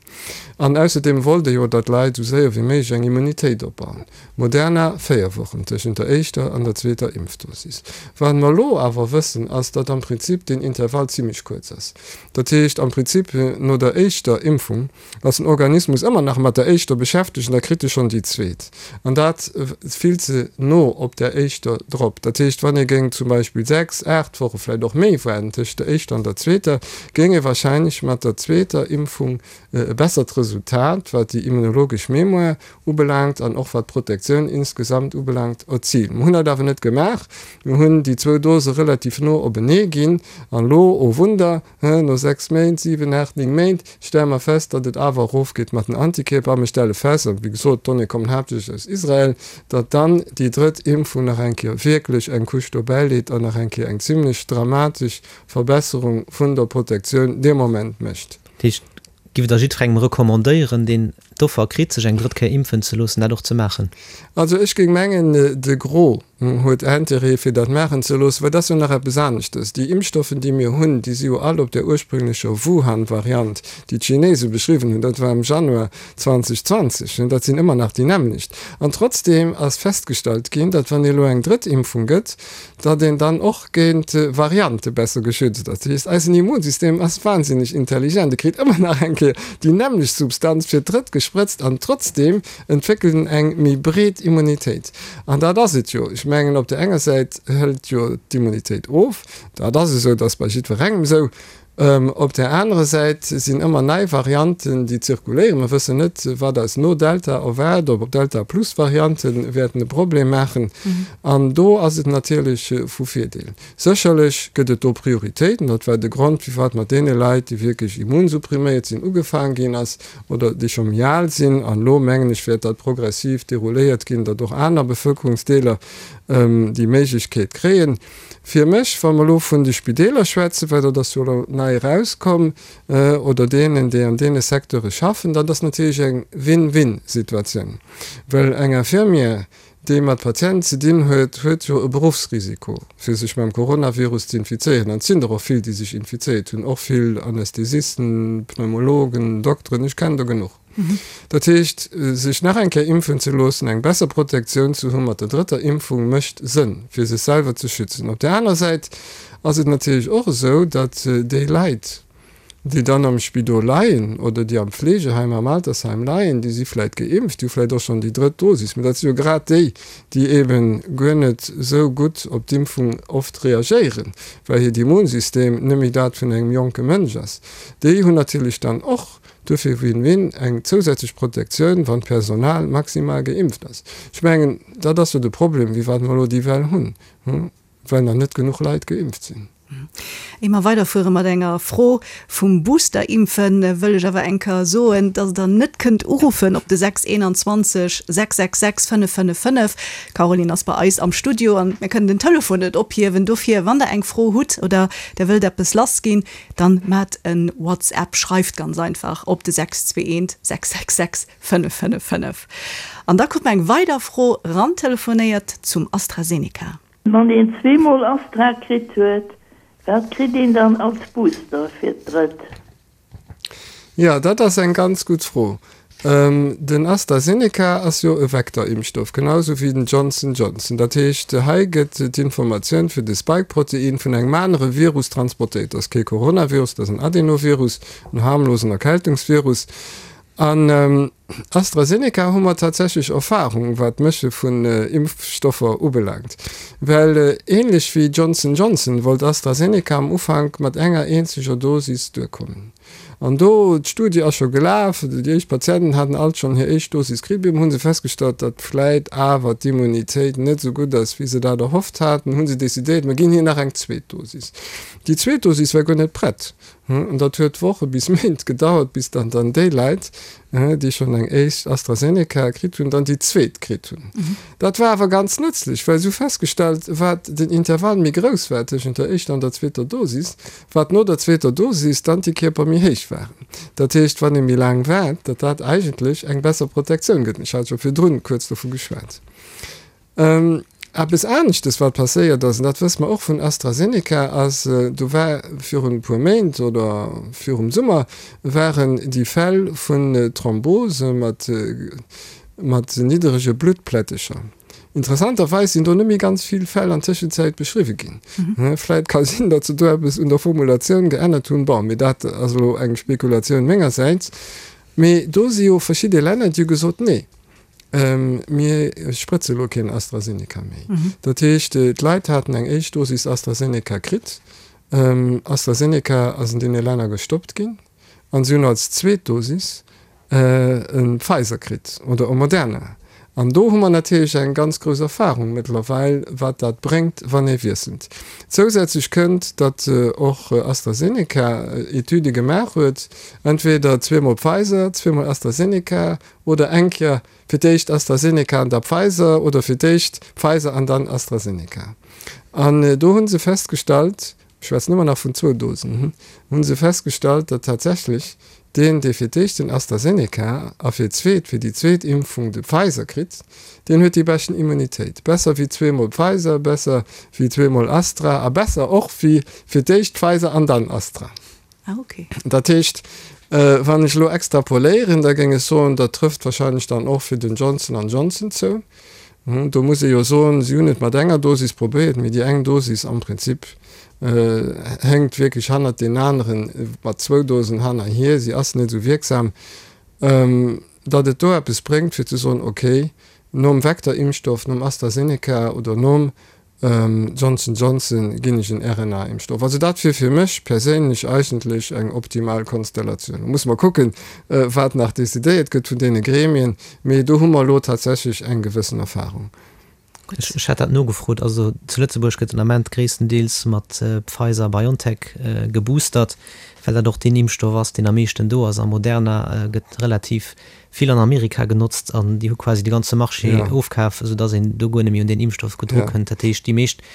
An ausserdeem wollt ee jo, datt d'Leit esou séier wéi méiglech eng Immunitéit opbauen. Moderna 4 Wochen tëschent der éischter an der zweeter Impfdosis. Wat mer elo awer wëssen, ass, datt am Prinzip deen Intervall zimmlech kuerz ass. Dat heescht am Prinzip no der éischter Impfung ass den Organismus ëmmer nach mat der éischter beschäftegt an da kritt e schonn déi zweet. An dat vill ze no op där éischter drop. Dat heescht, wann ee géing zum Beispill 6, 8 Woche, vläicht och méi waarden tëscht der éischter an der zweeter, géing ee wahrscheinlech mat der zweeter Impfung e bessert Resultat, wat déi immunologesch Mémoire ubelaangt an och wat d'Protektioun insgesamt ubelaangt, erzilen. Mer hunn dat awer net gemaach. Mir hunn déi zwou Dose relativ no openee ginn an elo, oh Wunder, No 6 Méint, 7, 8, 9 Méint stelle mer fest, datt et awer erofgeet mat den Antikierper. A mir stelle fest, a wéi gesot, d'Donnéeë kommen haaptsächlech aus Israel, datt dann déi drëtt Impfung nach eng Kéier wierklech eng Couche dobäileet an nach eng Kéier eng zimlech dramatesch Verbesserung vun der Protektioun dee Moment mécht. Dat heescht, giff Der jiddwerengem recommandéieren, deen d'Offer kritt, sech eng drëtt Kéier impfen ze loossen, dat och ze maachen? Also ech géing mengen, de Gros huet Intérêt fir dat maachen ze loossen, well dat ass jo nach eppes aneschtes. Déi Impfstoffen, déi mir hunn, déi si jo all op där ursprünglecher Wuhan-Variant, déi d'Chinese beschriwwen hunn, dat war am Januar 2020, dat sinn ëmmer nach déi nämmlecht. An trotzdeem ass festgestallt ginn, datt wann ee elo eng drëtt Impfung gëtt, datt een dann och géint Variante besser geschützt ass. Dat heescht, eisen Immunsystem ass wahnsinneg intelligent, e kritt ëmmer nach eng Kéier déi nämmlecht Substanz fir d'drëtt gesprëtzt an trotzdeem entwéckelt en eng méi breet Immunitéit. An dat ass et jo. Ech mengen, op där enger Säit hëlt jo d'Immunitéit of, dat ass esou, dat ass bei jiddwerengem esou. Op där anerer Säit sinn ëmmer nei Varianten, déi zirkuléieren. Mer wëssen net, wat eis no Delta erwaart, ob Delta-Plus-Variante wäerten e Problem maachen. An do ass et natierlech vu Virdeel. Sécherlech gëtt et do Prioritéiten. Dat war de Grond, firwat mat deene Leit, déi wierklech immunsuppriméiert sinn, ugefaang ginn ass oder déi scho méi al sinn. An elo, mengen ech, wäert dat progressiv derouléiert ginn, datt och aner Bevëlkerungsdeeler déi Méiglechkeet kréien. Fir mech, wa mer elo vun de Spideeler schwätzen, well dat ass jo elo nei erauskomm, oder deenen, déi an deene Secteure schaffen, dat ass natierlech eng Win-win-Situatioun, well eng Infirmière, déi mat Patienten ze dinn huet, huet jo e Beruffsrisiko, fir sech mam Coronavirus ze infizéieren. An et sinn der och vill, déi sech infizéiert hunn, och vill Anästhesisten, Pneumologen, Dokteren, ech kennen der genuch. Dat heescht, sech nach eng Kéier impfen ze loossen, eng besser Protektioun ze hu mat der drëtter Impfung, mécht Sënn, fir sech selwer ze schützen. Op där aner Säit ass et natierlech och esou, datt déi Leit, déi dann am Spidol leien oder déi am Fleegeheim, am Altersheim leien, déi si vläicht geimpft, déi hu vläicht och schonn déi drëtt Dosis, mä dat si jo grad déi, déi eebe guer net esou gutt op d'Impfung oft reagéieren, well hiert Immunsystem net méi dat vun engem jonke Mënsch ass. Déi hunn natierlech dann och Duerfir Win-Win, eng zousätzlech Protektioun, wann d'Personal maximal geimpft ass. Ech mengen, dat ass jo de Problem, firwat mer elo déi Well hunn, well nach net genuch Leit geimpft sinn. Ier mer weiderfuere mat enger Fro vum Booster-Impfen, wëll ech awer eng Kéier soen, dass Der net kënnt uruffen op de 621 666 555. D'Caroline ass bei eis am Studio an mir kënnen den Telefon net ophiewen. Dofir, wann Der eng Fro hutt oder Der wëllt eppes lassginn, Dann maat en WhatsApp, schreift ganz einfach op de 621 666 555. An da krut mer eng weider Fro rantelefonéiert zum AstraZeneca. Wann een zweemol Astra kritt huet, wat kritt een dann als Booster fir d'drëtt? Jo, dat ass eng ganz gutt Fro. Den AstraZeneca ass jo e Vektorimpfstoff, genau esou wéi den Johnson Johnson. Dat heescht, hei gëtt d'Informatioun fir de Spike-Protein vun engem anere Virus transportéiert. Dat ass kee Coronavirus, dat ass en Adenovirus, en harmlosen Erkältungsvirus. An AstraZeneca hu mer tatsächlech Erfahrung, wat d'Mësche vun Impfstoffer ubelaangt. Well änlech wéi Johnson Johnson wollt AstraZeneca am Ufank mat enger eenzeger Dosis duerkommen. An do, d'Studie ass scho gelaf, déi éischt Patienten haten alt schonn hir éischt Dosis kritt, op eemol hu se festgestallt, datt vläit awer d'Immunitéit net esou gutt ass, wéi se dat erhofft haten, hu se decidéiert, mer ginn hir nach eng zweet Dosis. Déi zweet Dosis war guer net prett. An dat huet Woche bis Méint gedauert, bis dann dann déi Leit, déi schonn eng éischt AstraZeneca kritt hunn, dann déi zweet kritt hunn. Dat war awer ganz nëtzlech, well se hu festgestallt, wat den Intervall méi grouss war tëschent der éischter an der zweeter Dosis, wat no der zweeter Dosis d'Antikierper méi héich waren. Dat heescht, wann ee méi laang waart, datt dat eigentlech eng besser Protektioun gëtt. Ech hat scho virdrun kuerz dovu geschwat. Eppes aneschtes, wat passéiert ass, an dat wësse mer och vun AstraZeneca, ass, do war virun e puer Méint oder virum Summer waren déi Fäll vun Thrombose mat mat nidderege Bluttplättecher. Interessanterweis sinn do net méi ganz vill Fäll an Tëschenzäit beschriwwe ginn. Vläit ka sinn, datt se do eppes un der Formulatioun geännert hunn, bon, mee dat ass elo eng Spekulatioun mengersäits. Mee do si jo verschidde Länner, déi hu gesot, nee, mir sprëtze elo keen AstraZeneca méi. Dat heescht, d'Leit haten eng éischt Dosis AstraZeneca kritt, AstraZeneca ass an deene Länner gestoppt ginn an si hunn als zweet Dosis e Pfizer kritt oder e Moderna. An do hu mer natierlech eng ganz grouss Erfahrung mëttlerweil, wat dat bréngt, wann ee wiesselt. Zousätzlech kënnt, datt och AstraZeneca Etüde gemaach huet, entweder zweemol Pfizer, zweemol AstraZeneca oder eng Kéier fir d'éischt AstraZeneca an da Pfizer oder fir d'éischt Pfizer an dann AstraZeneca. An do hu se festgestallt, ech schwätzen ëmmer nach vun zwou Dosen, hu se festgestallt, datt tatsächlech deen, dee fir d'éischt den AstraZeneca a fir d'zweet, fir déi zweet Impfung de Pfizer kritt, deen huet déi beschten Immunitéit. Besser wéi zweemol Pfizer, besser wéi zweemol Astra a besser och wéi fir d'éischt Pfizer an dann Astra. Ah, okay. Dat heescht, wann ech elo extrapoléieren, da géing ech soen, dat trëfft wahrscheinlech dann och fir den Johnson an Johnson zou. Do muss ee jo soen, si hunn et mat enger Dosis probéiert, mee déi eng Dosis am Prinzip hénkt wierklech hannert deenen aneren mat zwou Dosen hannerhier, si ass net esou wierksam, datt et do eppes bréngt fir ze soen, okay, nom Vector-Impfstoff, nom AstraZeneca oder nom Johnson Johnson ginn ech en RNA-Impfstoff. Also dat wier fir mech perséinlech eigentlech eng optimal Konstellatioun. Lo musse mer kucken, wat nach decidéiert gëtt vun deene Gremien, mee do hu mer elo tatsächlech eng gewëssen Erfahrung. Ech hat dat nogefrot. Also zu Lëtzebuerg gëtt den Ament gréisstendeels mat Pfizer-BioNTech geboostert, well dat och deen Impfstoff ass, deen am meeschten do ass. A Moderna gëtt relativ vill an Amerika genotzt an déi hu quasi de ganze Marché ofkaf, esou dass een do guer net méi un deen Impfstoff gutt drukënnt. Dat heescht, déi meescht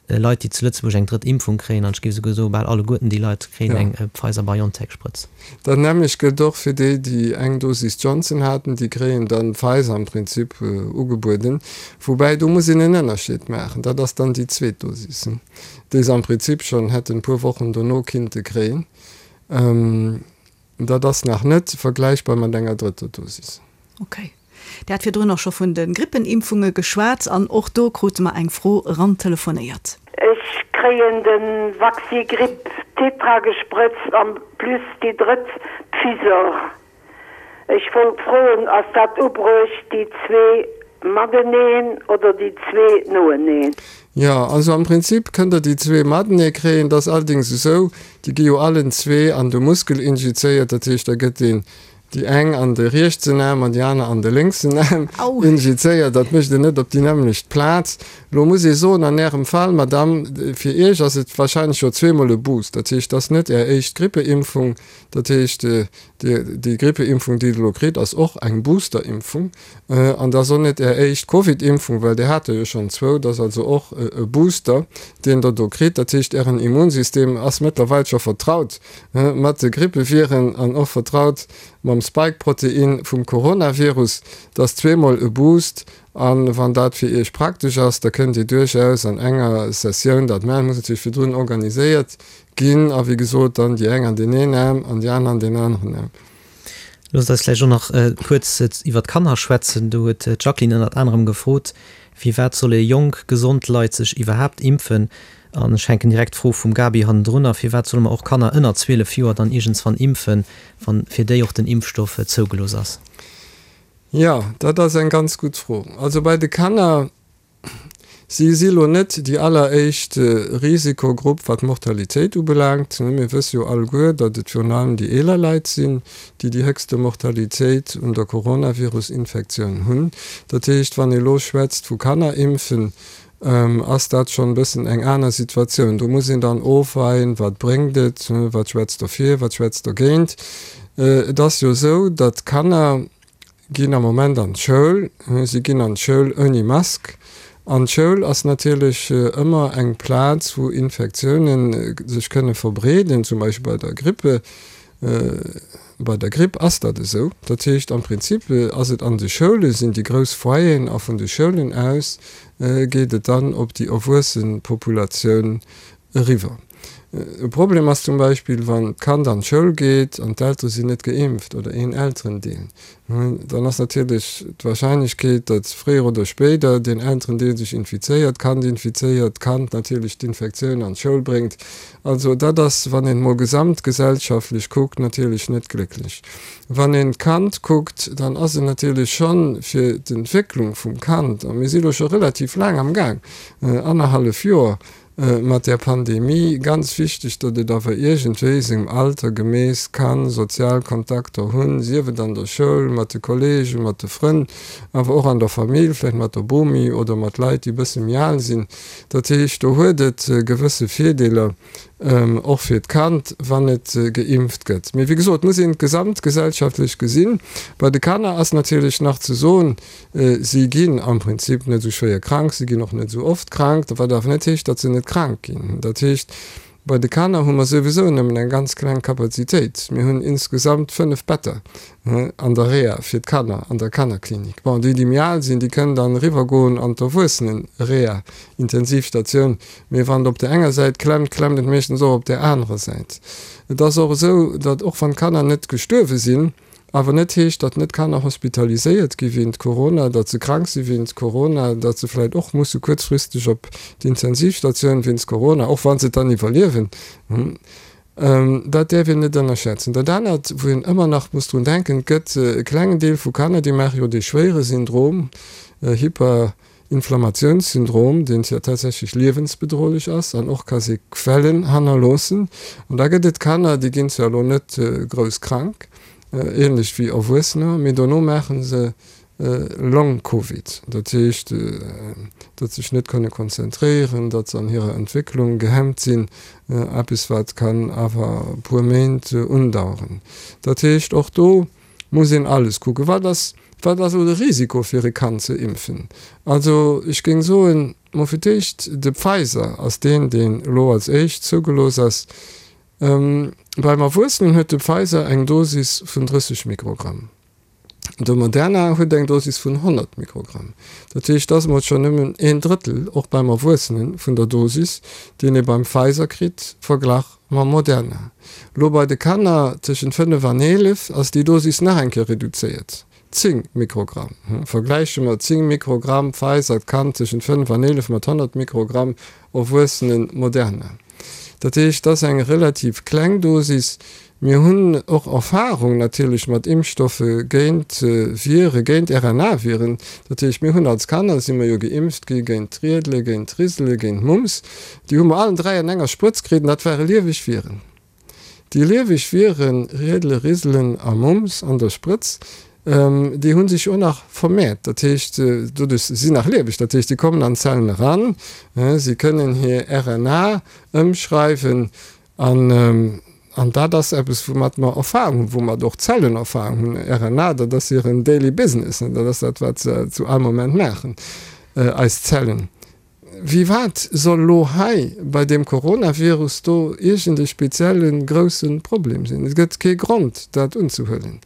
Leit, déi zu Lëtzebuerg eng drëtt Impfung kréien, an ech géif esouguer soen, bal alleguerten déi Leit kréien eng Pfizer-BioNTech-Sprëtz. Dat nämmlecht gëllt och fir déi, déi eng Dosis Johnson haten, déi kréien dann Pfizer am Prinzip ugebueden. Woubäi, do muss een en Ënnerscheed maachen, dat ass dann déi zweet Dosis, déi se am Prinzip schonn hätten e puer Wochen dono kinnte kréien. Dat ass nach net vergläichbar mat enger drëtter Dosis. Ok. Dir hat virdrun och scho vun de Grippenimpfunge geschwat an och do krute mer eng Fro erantelefonéiert. Ech kréien den Vaxigrip Tetra gesprëtzt an plus déi drëtt Pfizor. Ech wollt froen ass dat ubruecht déi zwee mateneen oder déi zwee noeneen? Jo, also am Prinzip kënnt der déi zwee matenee kréien. Et ass allerdings esou, déi gi jo allen zwee an de Muskel injizéiert, dat heescht da gëtt een déi eng an de rietsen Aarm an déi aner an de lénksen Aarm injizéiert. Dat mécht een net op déi nämmlecht Plaz. Elo muss ee soen, an Ärem Fall, Madame, fir Iech ass et wahrscheinlech jo zweemol e Boost. Dat heescht, et ass net Är éischt Grippeimpfung. Dat heescht, déi Grippeimpfung, déi Der elo kritt, ass och eng Boosterimpfung. An dat ass och net Är éischt Covidimpfung, well Dir hat der jo schonn zwou. Dat ass also och e Booster, deen Der do kritt. Dat heescht, Ären Immunsystem ass mëttlerweil scho vertraut mat de Grippeviren an och vertraut mam Spike-Protein vum Coronavirus. Dat ass zweemol e Boost. A wann dat fir Iech praktesch ass, da kënnt Dir duerchaus an enger Sessioun dat maachen. Muss natierlech virdrun organiséiert ginn. A wéi gesot, dann déi eng an deen een Aarm an déi aner an deen aneren Aarm. Loosst eis vläicht och nach kuerz iwwer d'Kanner schwätzen. Do huet d'Jacqueline ënnert anerem gefrot, Firwat solle jonk, gesond Leit sech iwwerhaapt impfen? An ech hänken direkt d'Fro vum Gaby hannendrunner, Firwat solle mer och Kanner ënner 12 Joer dann iergendswann impfen, wann fir déi och den Impfstoff zougelooss ass? Jo, dat ass eng ganz gutt Fro. Also bei de Kanner, si si lo net déi alleréischt Risikogrupp wat d'Mortalitéit ubelaangt. Mir wësse jo alleguer, datt et virun allem déi eeler Leit sinn, déi déi héchste Mortalitéit un der Coronavirus-Infektioun hunn. Dat heescht, wann ee lo schwätzt vu Kanner impfen, ass dat schonn e bëssen eng aner Situatioun. Do muss een dann ofweien, wat bréngt et, wat schwätzt derfir, wat schwätzt dergéint. Et ass jo esou, datt Kanner ginn am Moment an d'Schoul, si ginn an d'Schoul ouni Mask. An d'Schoul ass natierlech ëmmer eng Plaz, wou Infektiounen sech kënne verbreeden, zum Beispill bei der Grippe. Bei der Gripp ass dat esou. Dat heescht, am Prinzip ass et an de Schoule sinn déi grouss Foyeren a vun de Schoulen aus geet et dann op déi erwuesse Populatioun eriwwer. E Problem ass zum Beispill, wann d'Kand an d'Schoul geet an d'Eltere sinn net geimpft oder een Elterendeel. Dann ass natierlech d'Warscheinlechkeet, datt fréier oder spéider deen Elterendeel sech infizéiert, d'Kand infizéiert, d'Kand natierlech d'Infektioun an d'Schoul bréngt. Also dat ass, wann een emol gesamtgesellschaftlech kuckt, natierlech net glécklech. Wann een d'Kand kuckt, dann ass et natierlech schonn fir d'Entwécklung vum Kand, a mir si lo scho relativ laang am Gaang, annerhallef Joer, mat där Pandemie ganz wichteg, datt et awer iergendwéi sengem Alter gemäss ka sozial Kontakter hunn, sief et an der Schoul, mat de Kollegen, mat de Frënn, awer och an der Famill, vläicht mat der Bomi oder mat Leit, déi e bësse méi al sinn. Dat heescht, do huet et gewësse Virdeeler, och fir d'Kand, wann et geimpft gëtt. Mee wéi gesot, muss een et gesamtgesellschaftlech gesinn. Bei de Kanner ass natierlech nach ze soen, Si ginn am Prinzip net esou schwéier krank, si ginn och net esou oft krank, wat awer net heescht, datt se net krank ginn. Dat heescht, bei de Kanner hu mer souwisou nëmmen eng ganz kleng Kapazitéit. Mir hunn insgesamt 5 Better an der Reha fir d'Kanner, an der Kannerklinik. Bon, déi, déi méi al sinn, déi kënnen dann eriwwergoen an d'Erwuessenen-Reha, Intensivstatioun. Mee wann et op där enger Säit klemmt, klemmt et meeschtens och op där anerer Säit. Et ass och esou, datt och wann d'Kanner net gestuerwe sinn, Awer net heescht, datt net Kanner hospitaliséiert gi wéint Corona, datt se krank si wéint Corona, datt se vläicht och musse kuerzfristeg op d'Intensivstatioun wéinst Corona, och wa se et dann iwwerliewen. Dat däerf een net ënnerschätzen. Dat anert, wou een ëmmer nach muss drun denken, et gëtt e klengen Deel vu Kanner, déi maache jo dee schwéiere Syndrom, Hyper. Inflammatiounssyndrom, deen tatsächlech liewensbedrohlech ass an och ka Sequellen hannerloossen. An da gëtt et Kanner, déi ginn zwar elo net grouss krank, ähnlech wéi Erwuessener, mee dono maache se Long Covid, dat heescht, datt se sech net kënne konzentréieren, datt se an hirer Entwécklung gehemmt sinn, eppes wat kann awer e puer Méint undaueren. Dat heescht, och do muss een alles kucken. Wat ass, wat ass elo de Risiko fir e Kand ze impfen? Also ech géing soen, mol fir d'éischt, de Pfizer ass deen, deen elo als éischt zougelooss ass. Beim Erwuessenen huet de Pfizer eng Dosis vun 30 Mikrogramm. De Moderna huet eng Dosis vun 100 Mikrogramm. Dat heescht, dat ass mol schonn nëmmen een Drëttel, och beim Erwuessenen, vun der Dosis, deen ee beim Pfizer kritt, verglach Mam Moderna. Lo bei de Kanner tëschent 5 an 11 ass déi Dosis nach eng Kéier reduzéiert, 10 Mikrogramm. Vergläiche mer 10 Mikrogramm Pfizer Kand tëschent 5 an 11 mat 100 Mikrogramm Erwuessenen Moderna. Dat heescht, dat ass eng relativ kleng Dosis. Mir hunn och Erfahrung natierlech mat Impfstoffe géint Vire, géint RNA-Viren. Dat heescht, mir hunn als Kanner si mer jo geimpft gi géint d'Riedele, géint d'Risele, géint d'Mumps. Déi hu mer allen 3 an enger Sprëtz kritt an dat ware lieweg Viren. Déi lieweg Viren, Riedele, Riselen a Mumps an der Sprëtz, déi hu sech och nach vermehrt. Dat heescht, doduerch, si sinn nach lieweg, dat heescht, déi kommen an d'Zellen eran, si kënnen hir RNA ëmschreiwen An, an dat ass eppes, woumat mer Erfahrung hunn, woumat och d'Zellen Erfahrung hunn. RNA, dat ass hiren daily business, dat ass dat, wat se zu all Moment maachen, eis Zellen. Wéi wat soll elo hei bei deem Coronavirus do iergend e spezielle grousse Problem sinn? Et gëtt kee Grond, dat unzehuelen.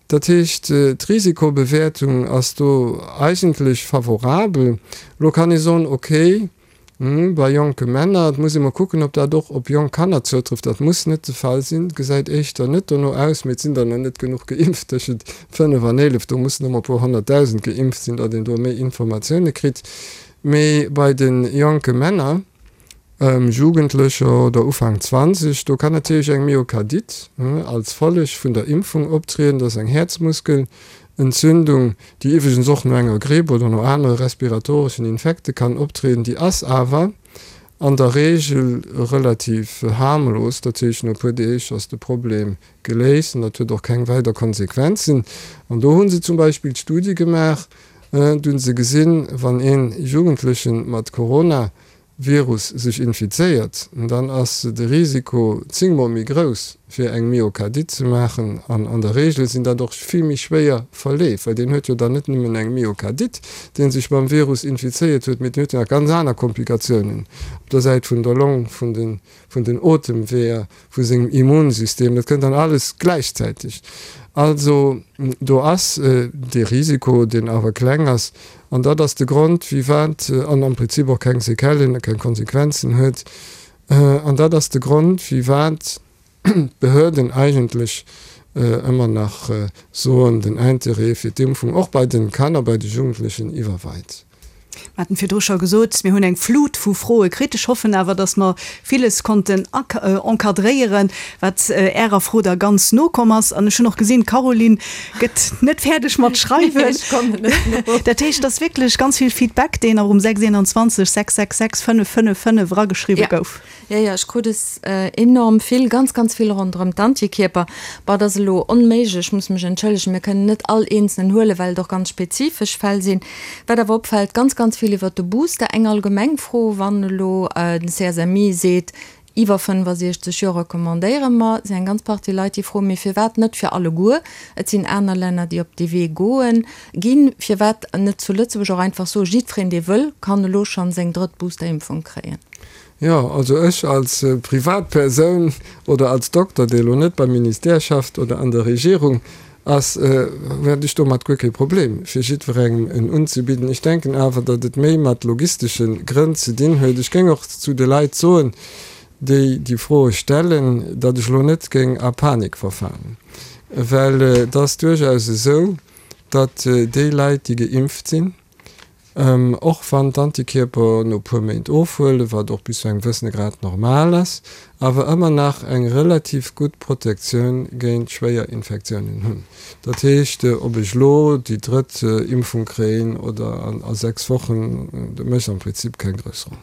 Dat heescht, d'Risikobewäertung ass do eigentlech favorabel. Elo kann ee soen, okay. Bei jonke Männer, et muss ee mol kucken, ob dat och op jonk Kanner zoutrëfft, dat muss net de Fall sinn, gesäit éischter net dono aus, mee et sinn der nach net genuch geimpft, tëschent 5 an 11, do mussen ëmmer e puer 100.000 geimpft sinn, datt een do méi Informatioune kritt. Mee bei de jonke Männer, Jugendlecher oder Ufank 20, do kann natierlech eng Myokardite als Folleg vun der Impfung optrieden, dat ass eng Häerzmuskel Entzündung, déi iwwregens och no enger Gripp oder no anere respiratoreschen Infekte kann optrieden, déi ass awer an der Reegel relativ harmlos. Dat heescht, no e puer Deeg ass de Problem geléist an dat huet och keng weider Konsequenzen. An do hu se zum Beispill Studie gemaach, do hu se gesinn, wann ee Jugendleche mat Corona Virus sech infizéiert, dann ass de Risiko zéngmol méi grouss fir eng Myokardite ze maachen an an der Regel sinn dat och vill méi schwéier Verleef, well deen huet jo dann net nëmmen eng Myokardite, deen sech mam Virus infizéiert huet, mee deen huet jo nach ganz aner Komplikatiounen op der Säit vun der Long, vun den vun den Otemweeër, vu sengem Immunsystem, dat kënnt dann alles gläichzäiteg. Also do ass dee Risiko, deen awer kleng ass, an dat ass de Grond, firwat, an am Prinzip och keng Séquellen a keng Konsequenzen huet, an dat ass de Grond, firwat d'Behörden eigentlech ëmmer nach soen, den Intérêt fir d'Impfung och bei de Kanner, bei de Jugendlechen iwwerweit. Mir haten virdru scho gesot, mir hunn eng Flut vu Froe kritt. Ech hoffen awer, dass mer villes konnten encadréieren, wat Ärer Fro da ganz no komm ass. An ech hunn och gesinn, d'Caroline gëtt net fäerdeg mat schreiwen. Ech kommen net no. Dat heescht, et ass wierklech ganz vill Feedback, deen och um 621 666 555 erageschriwwe gouf. Jo, jo, ech krut es enorm vill, ganz, ganz vill ronderëm d'Antikierper. Bon, et ass elo onméiglech, ech muss mech entschëllegen, mir kënnen net all eenzelnen huelen, well et och ganz spezifesch Fäll sinn. Wat awer opfält, ganz, ganz vill iwwert de Booster. Eng allgemeng Fro, Wann elo den CSMI seet, iwwer 65 Joer recommandéiere mer, sinn eng ganz Partie Leit, déi froen, mee firwat net fir alleguer? Et sinn aner Länner, déi op dee Wee goen ginn. Firwat net zu Lëtzebuerg och einfach soen, jiddwereen, dee wëll, kann elo schonn seng drëtt Boosterimpfung kréien? Jo, also ech als Privatpersoun oder als Dokter, dee elo net beim Ministère schafft oder an der Regierung ass, hätt ech domat guer kee Problem, fir jiddwerengem en unzebidden. Ech denken awer, datt et méi mat logistesche Grënn ze dinn huet. Ech géing och zu de Leit soen, déi déi Froe stellen, datt ech elo net géing a Panik verfalen, well et ass duerchaus esou, datt déi Leit, déi geimpft sinn, Och wann d'Antikierper no puer Méint ofhuelen, wat och bis zu engem wëssene Grad normal ass, awer ëmmer nach eng relativ gutt Protektioun géint schwéier Infektiounen hunn. Dat heescht, ob ech elo déi drëtt Impfung kréien oder a 6 Wochen, dat mécht am Prinzip keng grouss Roll.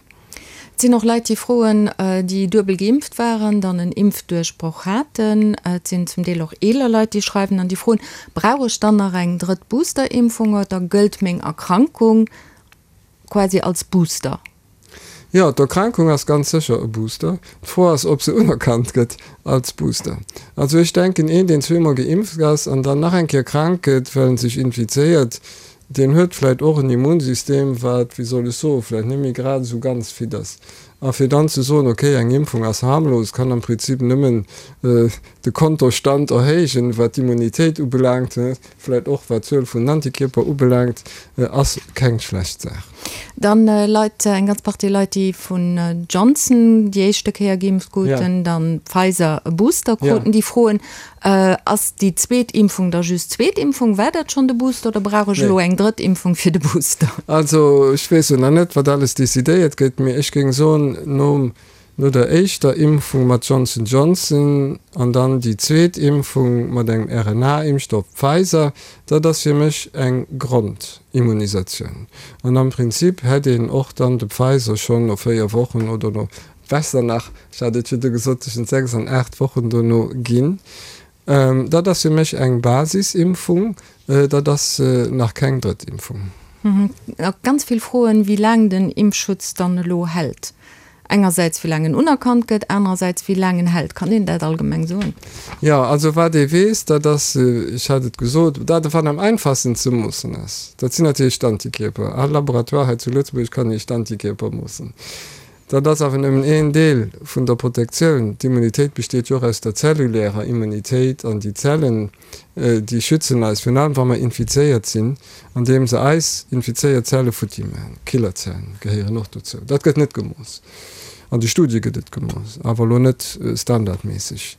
Et sinn och Leit, déi froen, déi duebel geimpft waren, dann en Impfduerchbroch haten. Et sinn zum Deel och eeler Leit, déi schreiwen an déi froen, Brauch ech dann nach eng drëtt Boosterimpfung oder gëllt meng Erkrankung quasi als Booster? Jo, d'Erkrankung ass ganz sécher e Booster. D'Fro ass, ob se unerkannt gëtt als Booster. Also ech denken, een, deen zweemol geimpft ass an dann nach eng Kéier krank gëtt, well en sech infizéiert, Deen huet vläit och en Immunsystem, wat, wéi soll ech soen, vläit net méi grad esou ganz fit ass. A fir dann ze soen, okay, eng Impfung ass harmlos, kann am Prinzip nëmmen de Kontostand erhéijen, wat d'Immunitéit ubelaangt, vläit och wat d'Zuel vun den Antikierper ubelaangt, ass keng schlecht Saach. Dann Leit, eng ganz Partie Leit, déi vun Johnson déi éischte Kéier geimpft kruten, dann Pfizer e Booster kruten, déi froen, Ass déi zweet Impfung da just zweet Impfung? War dat schonn de Booster oder brauch ech elo eng drëtt Impfung fir de Booster? Also ech weess jo nach net, wat alles decidéiert gëtt, mee ech géing soen, nom, no der éischter Impfung mat Johnson Johnson an dann déi zweet Impfung mat engem RNA-Impfstoff Pfizer, dat ass fir mech eng Grondimmunisatioun. An am Prinzip hätt een och dann de Pfizer schonn no 4 Wochen oder no Besser nach, ech hat et virdu gesot, tëschent 6 an 8 Wochen dono ginn. Dat ass fir mech eng Basisimpfung, dat ass nach keng Drëttimpfung. Ganz vill Froen, wéi laang den Impfschutz dann elo hält. Engersäits wéi laang en unerkannt gëtt, anerersäits wéi laang en hält. Kann een dat allgemeng soen? Jo, also wat ee weess, dat ass, ech hat et gesot, dat wat am einfachsten ze moossen ass, dat sinn natierlech d'Antikierper. All Laboratoire hei zu Lëtzebuerg kann Iech d'Antikierper moossen. Dat ass awer nëmmen een Deel vun der Protektioun. D'Immunitéit besteet jo och aus der zellulärer Immunitéit an déi Zellen, déi schützen eis, virun allem wa mer infizéiert sinn, andeem se eis infizéiert Zelle futti maachen. Killerzellen gehéieren och dozou. Dat gëtt net gemooss. An de Studie gëtt et gemooss, awer elo net standardméisseg.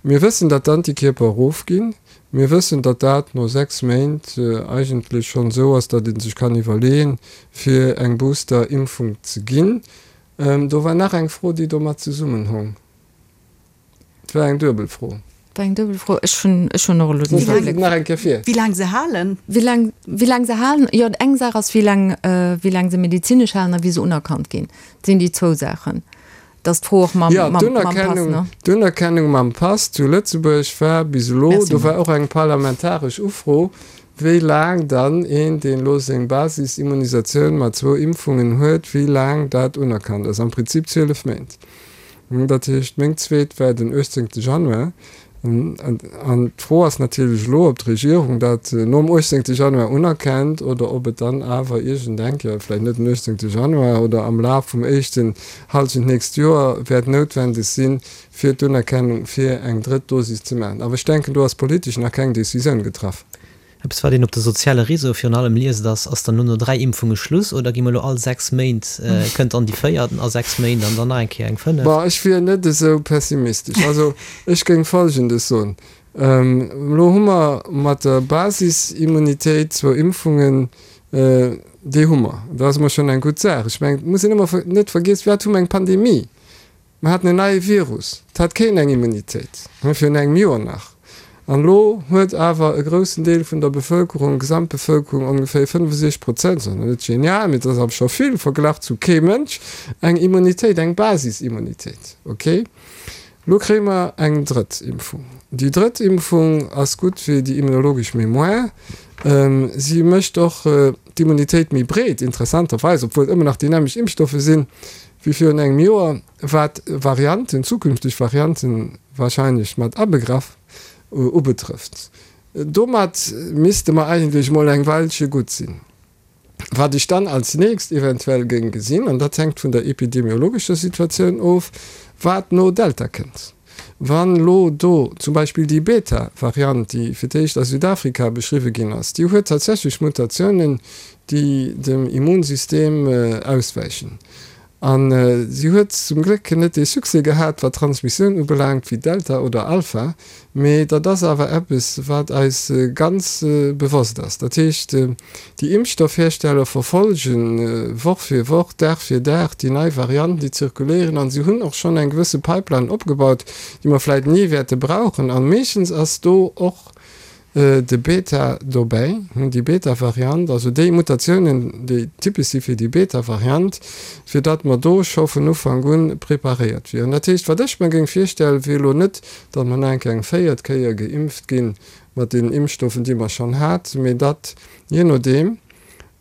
Mir wëssen, datt d'Antikierper erofginn. Mir wëssen, datt dat no 6 Méint eigentlech schonn esou ass, datt ee sech kann iwwerleeën, fir eng Booster-Impfung ze ginn. Do war nach eng Fro, déi domat zesummenhong. Et war eng duebel Fro. Et war eng duebel Fro. Ech hunn, ech hunn och elo den Iwwerbléck. Nach eng Kéier vir. Wéi laang se halen? Wéi laang, wéi laang se halen? Jo, eng Saach ass, wéi laang, wéi laang se medezinesch halen a wéi se unerkannt ginn. Dat sinn déi zwou Saachen. Dass d'Fro och mam, mam, mam Pass, ne? D'Unerkennung mam Pass zu Lëtzebuerg war bis elo, do war och eng parlamentaresch Ufro, wéi laang dann een, deen elo seng Basisimmunisatioun mat zwou Impfungen huet, wéi laang dat unerkannt ass. Am Prinzip 12 Méint. Dat heescht, meng zweet war den 18. Januar. An d'Fro ass natierlech elo, ob d'Regierung dat nom 18. Januar unerkennt oder ob et dann awer iergendeng Kéier, vläicht net den 18. Januar oder am Laf vum éischten Hallschent d'nächst Joer, wäert noutwendeg sinn, fir d'Unerkennung fir eng drëtt Dosis ze maachen. Awer ech denken, do ass politesch nach keng Decisioun getraff. Eppes wat een op de soziale Réseaue virun allem liest ass, ass dann elo no 3 Impfunge Schluss oder gi mer elo all 6 Méint, kënnt dann déi véiert a 6 Méint an dann nach eng Kéier eng fënneft? Bon, ech wier net esou pessimistesch. Also ech géing Folgendes soen, Elo hu mer mat der Basisimmunitéit zwou Impfungen, déi hu mer. Dat ass emol schonn eng gutt Saach. Ech mengen, et muss een ëmmer net vergiessen, firwat hu mer eng Pandemie? Mer haten en neie Virus, et hat keen eng Immunitéit, virun engem Joer nach. An elo huet awer e groussen Deel vun der Bevëlkerung, Gesamtbevëlkerung, ongeféier 65 Prozent, ass nach net genial, mee et ass awer scho vill verglach zu kee Mënsch, eng Immunitéit, eng Basisimmunitéit. Ok, elo kréie mer eng drëtt Impfung. Déi drëtt Impfung ass gutt fir déi immunologesch Mémoire. Si mécht och d'Immunitéit méi breet, interessanterweis, obwuel et ëmmer nach déi nämmlecht Impfstoffe sinn. Wéi virun engem Joer, wat Varianten, zukünfteg Varianten wahrscheinlech mat abegraff, ubetrëfft. Domat misste mer eigentlech mol eng Weilche gutt sinn. Wat ech dann als nächst eventuell géing gesinn, an dat hänkt vun der epidemiologescher Situatioun of, wat no Delta kënnt. Wann elo do zum Beispill déi Beta-Variant, déi fir d'éischt a Südafrika beschriwwe ginn ass, déi huet tatsächlech Mutatiounen, déi dem Immunsystem auswäichen. A si huet zum Gléck net dee Succès gehat, wat d'Transmissioun ubelaangt, wéi Delta oder Alpha. Mee dat ass awer eppes, wat eis ganz bewosst ass. Dat heescht, déi Impfstoffhersteller verfolge Woch fir Woch, Dag fir Dag déi nei Varianten, déi zirkuléieren. A si hunn och schonn eng gewësse Pipeline opgebaut, déi mer vläicht ni wäerte brauchen. A meeschtens ass do och de Beta dobäi, déi Beta-Variant, also déi Mutatiounen, déi typesch si fir déi Beta-Variant, fir datt mer do scho vun Ufank un preparéiert wieren. Dat heescht, wat ech mer géing virstellen, wier elo net, datt mer nach eng Kéier eng véiert Kéier geimpft gi mat deenen Impfstoffen, déi mer schonn haten, mee datt, jee nodeem,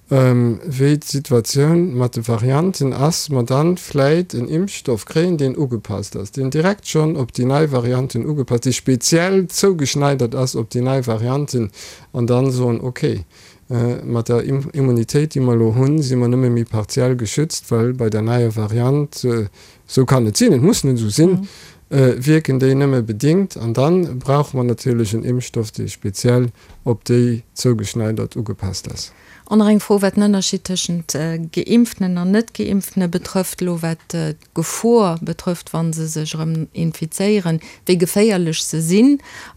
wéi d'Situatioun mat de Varianten ass, mer dann vläit en Impfstoff kréien, deen ugepasst ass, deen direkt schonn op déi nei Varianten ugepasst, dee speziell zougeschneidert ass op déi nei Varianten, an dann soen, okay, mat der Immunitéit, déi mer elo hunn, si mer nëmme méi partiell geschützt, well bei der neier Variant, esou kann et sinn, et muss net esou sinn, wierken déi nëmme bedingt. An da brauche mer natierlech en Impfstoff, dee speziell op déi zougeschneidert ugepasst ass. An nach eng Fro, wat den Ënnerscheed tëschent Geimpftenen an Net-Geimpftene betrëfft, elo wat d'Gefor betrëfft, wa se sech erëm infizéieren, wéi geféierlech se sinn.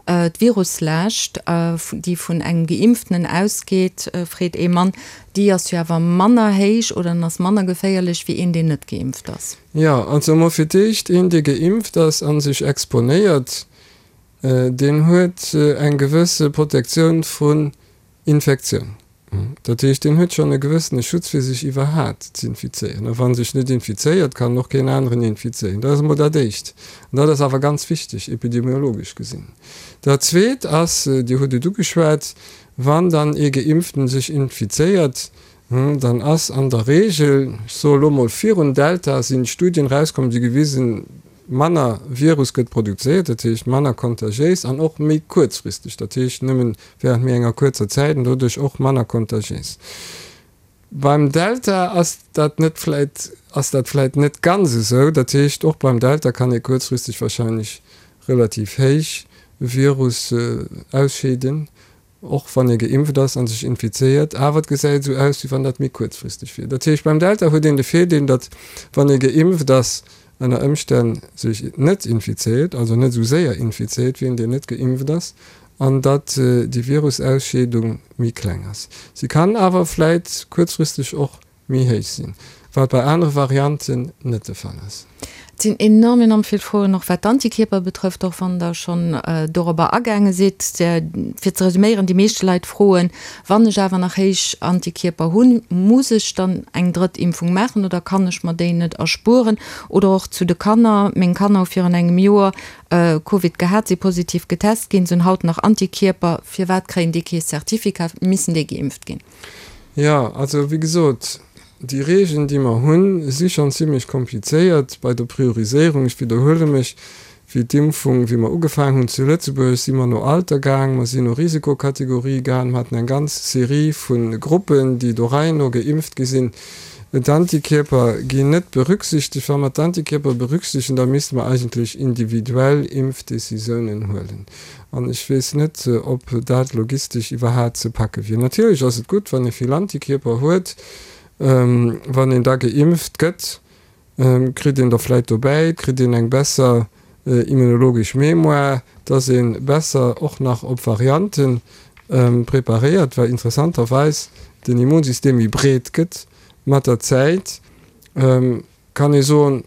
D'Viruslaascht, déi vun engem Geimpftenen ausgeet, freet ee Mann, déi ass jo awer manner héich oder en ass manner geféierlech wéi een, deen net geimpft ass. Jo, also emol fir d'éischt, een, dee geimpft ass a sech exponéiert, deen huet eng gewësse Protektioun vrun Infektioun. Dat heescht, deen huet schonn e gewëssene Schutz fir sech iwwerhaat z'infizéieren. A wa en sech net infizéiert, kann en och keen aneren infizéieren. Dat ass emol dat Éischt. An dat ass awer ganz wichteg, epidemiologesch gesinn. Dat Zweet ass, Dir hutt et ugeschwat, wann dann ee Geimpften sech infizéiert, dann ass an der Regel, ech soe lo mol virun Delta sinn Studien erauskomm, déi gewisen, Manner Virus gëtt produzéiert, dat heescht manner kontagiéis an och méi kuerzfristeg, dat heescht nëmmen während méi enger kuerzer Zäit an doduerch och manner kontagiéis. Beim Delta ass dat net vläit, ass dat vläit net ganz esou. Dat heescht, och beim Delta kann ee kuerzfristeg wahrscheinlech relativ héich Virus ausscheeden, och wann ee geimpft ass a sech infizéiert. Awer et gesäit esou aus, wéi wann dat méi kuerzfristeg wier. Dat heescht, beim Delta huet een de Virdeel, datt wann ee geimpft ass, ënner Ëmstänn sech net infizéiert, also net esou séier infizéiert wéi een, deen net geimpft ass, an datt déi Virusausscheedung méi kleng ass. Si kann awer vläit kuerzfristeg och méi héich sinn, wat bei anere Varianten net de Fall ass. Et sinn enorm, enorm vill Froen, och wat d'Antikierper betrëfft, och wann Der schonn dorobber agaange sidd. Fir ze resuméieren, déi meeschte Leit froen, Wann ech awer nach héich Antikierper hunn, muss ech dann eng drëtt Impfung maachen oder kann ech mer déi net erspueren? Oder och zu de Kanner, Meng Kanner hu virun engem Joer Covid gehat, si positiv getest ginn, se hunn haut nach Antikierper. Firwat kréien déi kee Certificat? Missen déi geimpft ginn? Jo, also wéi gesot, déi Regeln, déi mer hunn, si schonn zimlech komplizéiert bei der Prioriséierung. Ech widderhuele mech, Wéi d'Impfung, wéi mer ugefaangen hunn zu Lëtzebuerg, si mer no Alter gaang, mer sinn no Risikokategorie gaang, mer haten eng ganz Serie vu Gruppen, déi do Rei no geimpft gi sinn. D'Antikierper ginn net berücksichtegt. Wa mer d'Antikierper berücksichtegen, da misste mer eigentlech individuell Impfdécisiounen huelen. An ech weess net, ob dat logistesch iwwerhaat ze packe wier. Natierlech ass et gutt, wann ee vill Antikierper huet, wann een da geimpft gëtt, kritt een der vläit dobäi, kritt een eng besser immunologesch Mémoire, dass ee besser och nach op Variante preparéiert, well interessanterweis den Immunsystem méi breet gëtt mat der Zäit, kann ee soen,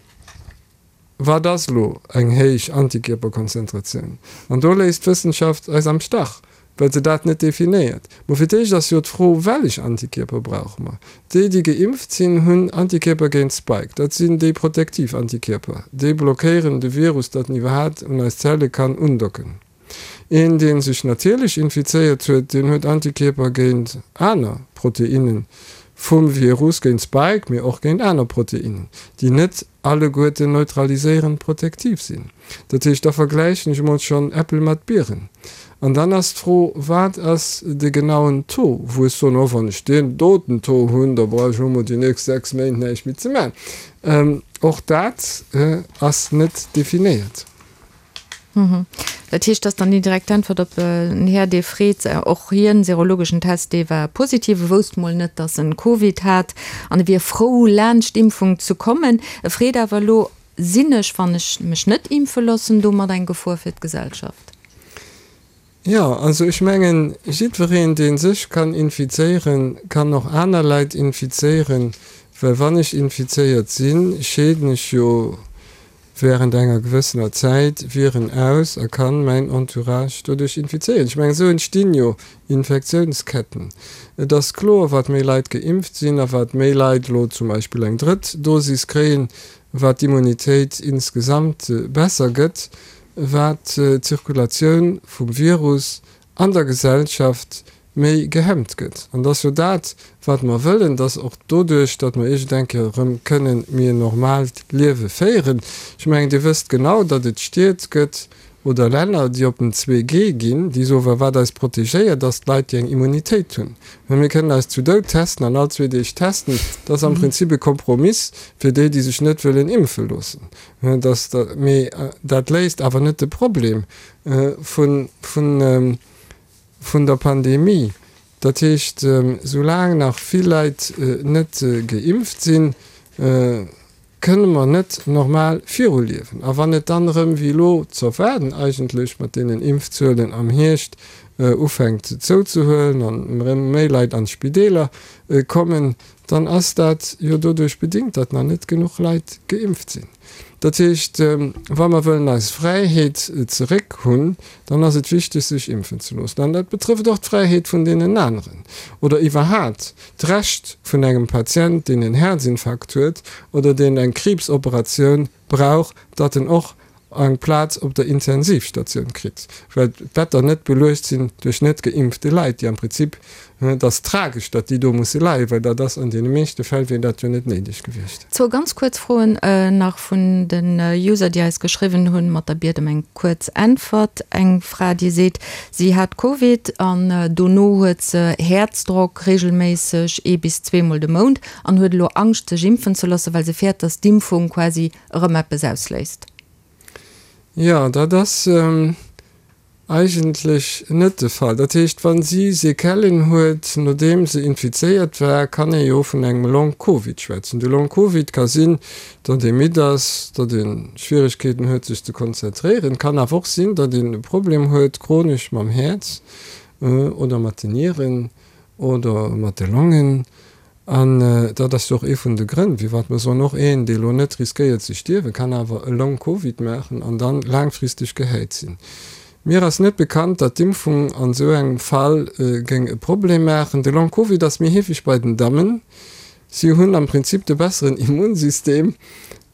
Wat ass elo eng héich Antikierperkonzentratioun? An do léisst d'Wëssenschaft eis am Stach, well se dat net definéiert. Mo fir d'éischt ass jo d'Fro, Wellech Antikierper brauche mer? Déi, déi geimpft sinn, hunn Antikierper géint Spike. Dat sinn déi protektiv Antikierper. Déi blockéieren de Virus, datt en iwwerhaat un eis Zelle kann undocken. Een, dee sech natierlech infizéiert huet, deen huet Antikierper géint aner Proteinne vum Virus, géint Spike, mee och géint aner Proteinnen, déi net alleguerten neutraliséierend protektiv sinn. Dat heescht, da vergläichen ech emol schonn Äppel mat Bieren. An dann ass d'Fro, Wat ass de genauen Taux, wou ech soen, oh, wann ech deen doten Taux hunn, da brauch ech elo mol déi nächst 6 Méint näischt méi ze maachen. Och dat ass net definéiert. Dat heescht, dass dann déi direkt Äntwert op en Här, dee freet, och hien, serologeschen Test, dee war positiv, e wousst mol net, dass en Covid hat an e wier frou, laanscht d'Impfung ze kommen. E freet awer elo, Sinn ech, wann ech mech net impfe loossen, domat eng Gefor fir d'Gesellschaft? Jo, also ech mengen, jiddwereen, dee sech kann infizéieren, kann och aner Leit infizéieren, well wann ech infizéiert sinn, scheeden ech jo während enger gewëssener Zäit Viren aus a kann mäin Entourage doduerch infizéieren. Ech mengen, esou entstinn jo Infektiounsketten. Et ass kloer, wat méi Leit geimpft sinn a wat méi Leit elo zum Beispill eng drëtt Dosis kréien, wat d'Immunitéit insgesamt besser gëtt, wat d'Zirkulatioun vum Virus an der Gesellschaft méi gehemmt gëtt. An et ass jo dat, wat mer wëllen, dass och doduerch, datt mer iergend eng Kéier erëm kënnen méi en normaalt Liewe féieren. Ech mengen, Dir wësst genau, datt et Stied gëtt oder Länner, déi op den 2G ginn, déi soen, well wat eis protegéiert, ass d'Leit, déi eng Immunitéit hunn. Mä mir kënnen eis zu Doud testen an all zwee Deeg testen. Dat ass am Prinzip e Kompromiss fir déi, déi sech net wëllen impfe loossen. Mee dat léist awer net de Problem vun der Pandemie. Dat heescht, soulaang nach vill Leit net geimpft sinn, kënne mer net normal viruliewen. A wann et dann erëm, wéi elo z'erwaarden eigentlech mat deenen Impfzuelen am Hierscht, ufänkt zouzehuelen an erëm méi Leit an d'Spideeler kommen, dann ass dat jo doduerch bedingt, datt nach net genuch Leit geimpft sinn. Dat heescht, wa mer wëllen eis Fräiheet zeréck hunn, dann ass et wichteg, sech impfen ze loossen. An dat betrëfft och d'Fräiheet vun deenen aneren oder iwwerhaat d'Recht vun engem Patient, deen en Häerzinfarkt huet oder deen eng Kriibsoperatioun brauch, datt en och. Eng Plaz op der Intensivstatioun kritt, well d'Better net beluecht sinn duerch net geimpfte Leit, déi am Prinzip, et ass tragesch, datt déi do musse leien, well dat ass an deene meeschte Fäll wier dat jo net néideg gewiescht. Zwou ganz kuerz Froen nach vun den User, déi eis geschriwwen hunn, mat der Biet ëm eng kuerz Äntwert. Eng Fra, déi seet, si hat Covid an dono huet se Häerzdrock, reegelméisseg ee bis zweemol de Mount, an huet elo Angscht sech impfen ze loossen, well se fäert, datt d'Impfung quasi erëm eppes ausléist? Jo, dat ass eigentlech net de Fall. Dat heescht, wa si Sequellen huet, nodeem se infizéiert war, kann ee jo vun engem Long-Covid schwätzen. De Long-Covid ka sinn, datt ee midd ass, datt ee Schwieregkeeten huet, sech ze konzentréieren. Et kann awer och sinn, datt een e Problem huet chronesch mam Häerz oder mat den Nieren oder mat de Longen. An dat ass jo och ee vun de Grënn, firwat mer soen, och een, dee elo net riskéiert ze stierwen, kann awer e Long-Covid maachen an dann laangfristeg gehäit sinn. Mir ass net bekannt, datt d'Impfung an esou engem Fall géing e Problem maachen. De Long-Covid ass méi heefeg bei den Dammen. Si hunn am Prinzip de besseren Immunsystem.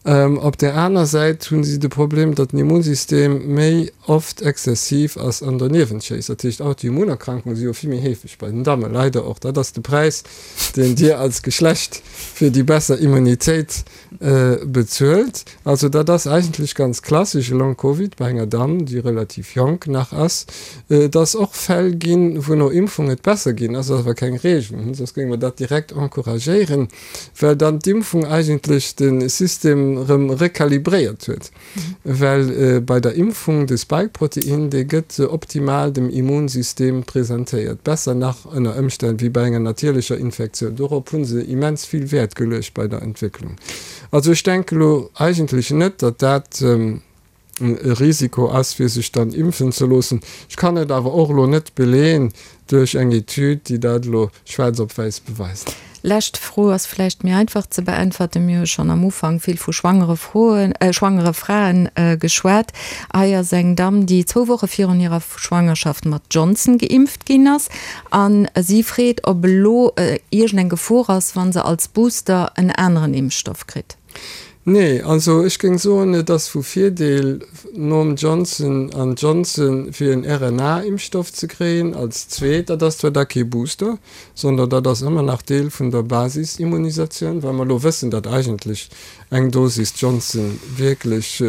Op där aner Säit hu si de Problem, datt den Immunsystem méi oft exzessiv ass an doniewent schéisst. Dat heescht, Autoimmunerkrankungen si jo vill méi heefeg bei den Dammen, leider och. Dat ass de Präis, deen Dir als Geschlecht fir déi besser Immunitéit bezuelt. Also dat ass eigentlech ganz klassesch e Long-Covid bei enger Damm, déi relativ jonk nach ass. Et ass och Fäll ginn, wou no Impfung et besser ginn ass, ass awer keng Reegel, soss géinge mer dat direkt encouragéieren. well dann d'Impfung eigentlech de System erëm rekalibréiert huet, well bei der Impfung de Spike-Protein, dee gëtt optimal dem Immunsystem presentéiert, besser nach ënner Ëmstänn wéi bei enger natierlecher Infektioun. Dorop hu se immens vill Wäert geluecht bei der Entwécklung. Also ech denke lo eigentlech net, datt dat. e Risiko ass fir sech dann impfen ze loossen. Ech kann et awer och elo net beleeën duerch eng Etüd, déi dat elo schwaarz op wäiss beweist. Lescht Fro ass vläicht méi einfach ze beäntwerten. Mir hu schonn am Ufank vill vu schwangere Froen, schwangere Fraen geschwat. Hei ass eng Damm, déi zwou Woche virun hirer Schwangerschaft mat Johnson geimpft ginn ass a si freet, ob elo iergend eng Gefor ass, wa se als Booster en aneren Impfstoff kritt. Nee, also ech géing soen, et ass vu Virdeel nom Johnson an Johnson fir en RNA-Impfstoff ze kréien als zweet. Dat ass zwar da kee Booster, sondern dat ass ëmmer nach Deel vun der Basisimmunisatioun, well mer elo wëssen, datt eigentlech eng Dosis Johnson wierklech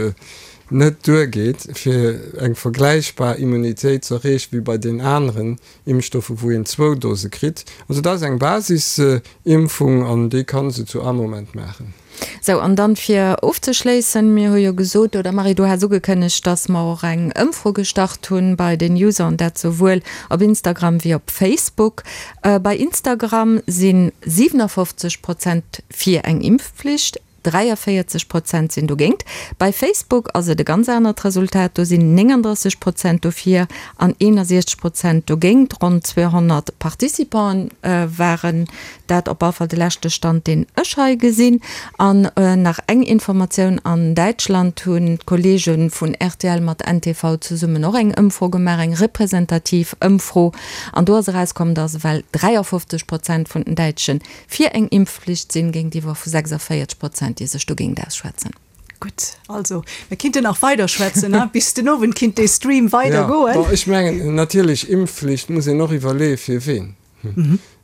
net duergeet, fir eng vergläichbar Immunitéit ze erreechen wéi bei den aneren Impfstoffe wou een zwou Dose kritt. Also dat ass eng Basisimpfung an déi kann se zu all Moment maachen. Sou, an dann fir ofzeschléissen, mir hu jo gesot, oder Marie, du has ugekënnegt, dass mer och eng Ëmfro gestart hunn bei den User, an dat souwuel op Instagram wéi op Facebook. Bei Instagram si 57 Prozent fir eng Impfpflicht, 43 Prozent sinn dogéint. Bei Facebook ass et e ganz anert Resultat, do sinn 39 Prozent dofir an 61 Prozent dogéint. Ronn 200 Participanten waren dat, op all Fall de leschte Stand, deen ech hei gesinn. An nach eng Informatioun, An Däitschland hunn d'Kolleege vun rtl mat ntv zesummen och eng Ëmfro gemaach, eng representativ Ëmfro, an do ass erauskomm, datt ewell 53 Prozent vun den Däitschen fir eng Impfflicht sinn, géintiwwer vu 46 Prozent, déi sech dogéint ausschwätzen. Gutt, also mir kinnten nach weider schwätzen, hein, bis den Owend kinnt dee Stream weider goen. Jo, bon, ech mengen natierlech, Impfflicht muss een och iwwerleeë fir ween.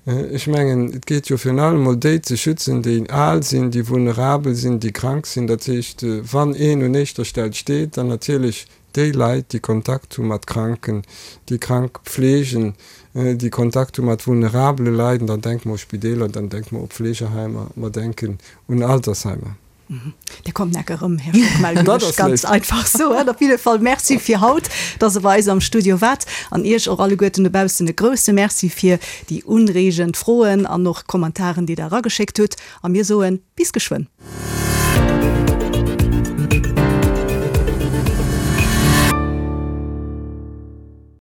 Ech mengen, et geet jo virun allem emol déi ze schützen, déi al sinn, déi vulnerabel sinn, déi krank sinn. Dat heescht, wann een un éischter Stell steet, dann natierlech Déi Leit, déi Kontakt hu mat Kranken, déi krank pfleegen, déi Kontakt hu mat vulnerabele Leit, an dann denke mer u Spideeler, dann denke mer u Pflegeheimer, mer denken un Altersheimer. Dir kommt neck erëm, Här Schockmel, géif ech ganz einfach soen. Op jidde Fall Merci fir haut, dass Der bei eis am Studio waart. An Iech och alleguerten dobaussen e grouse Merci fir déi unreegend Froen an och Kommentaren, déi Der erageschéckt hutt. A mir soen bis geschwënn.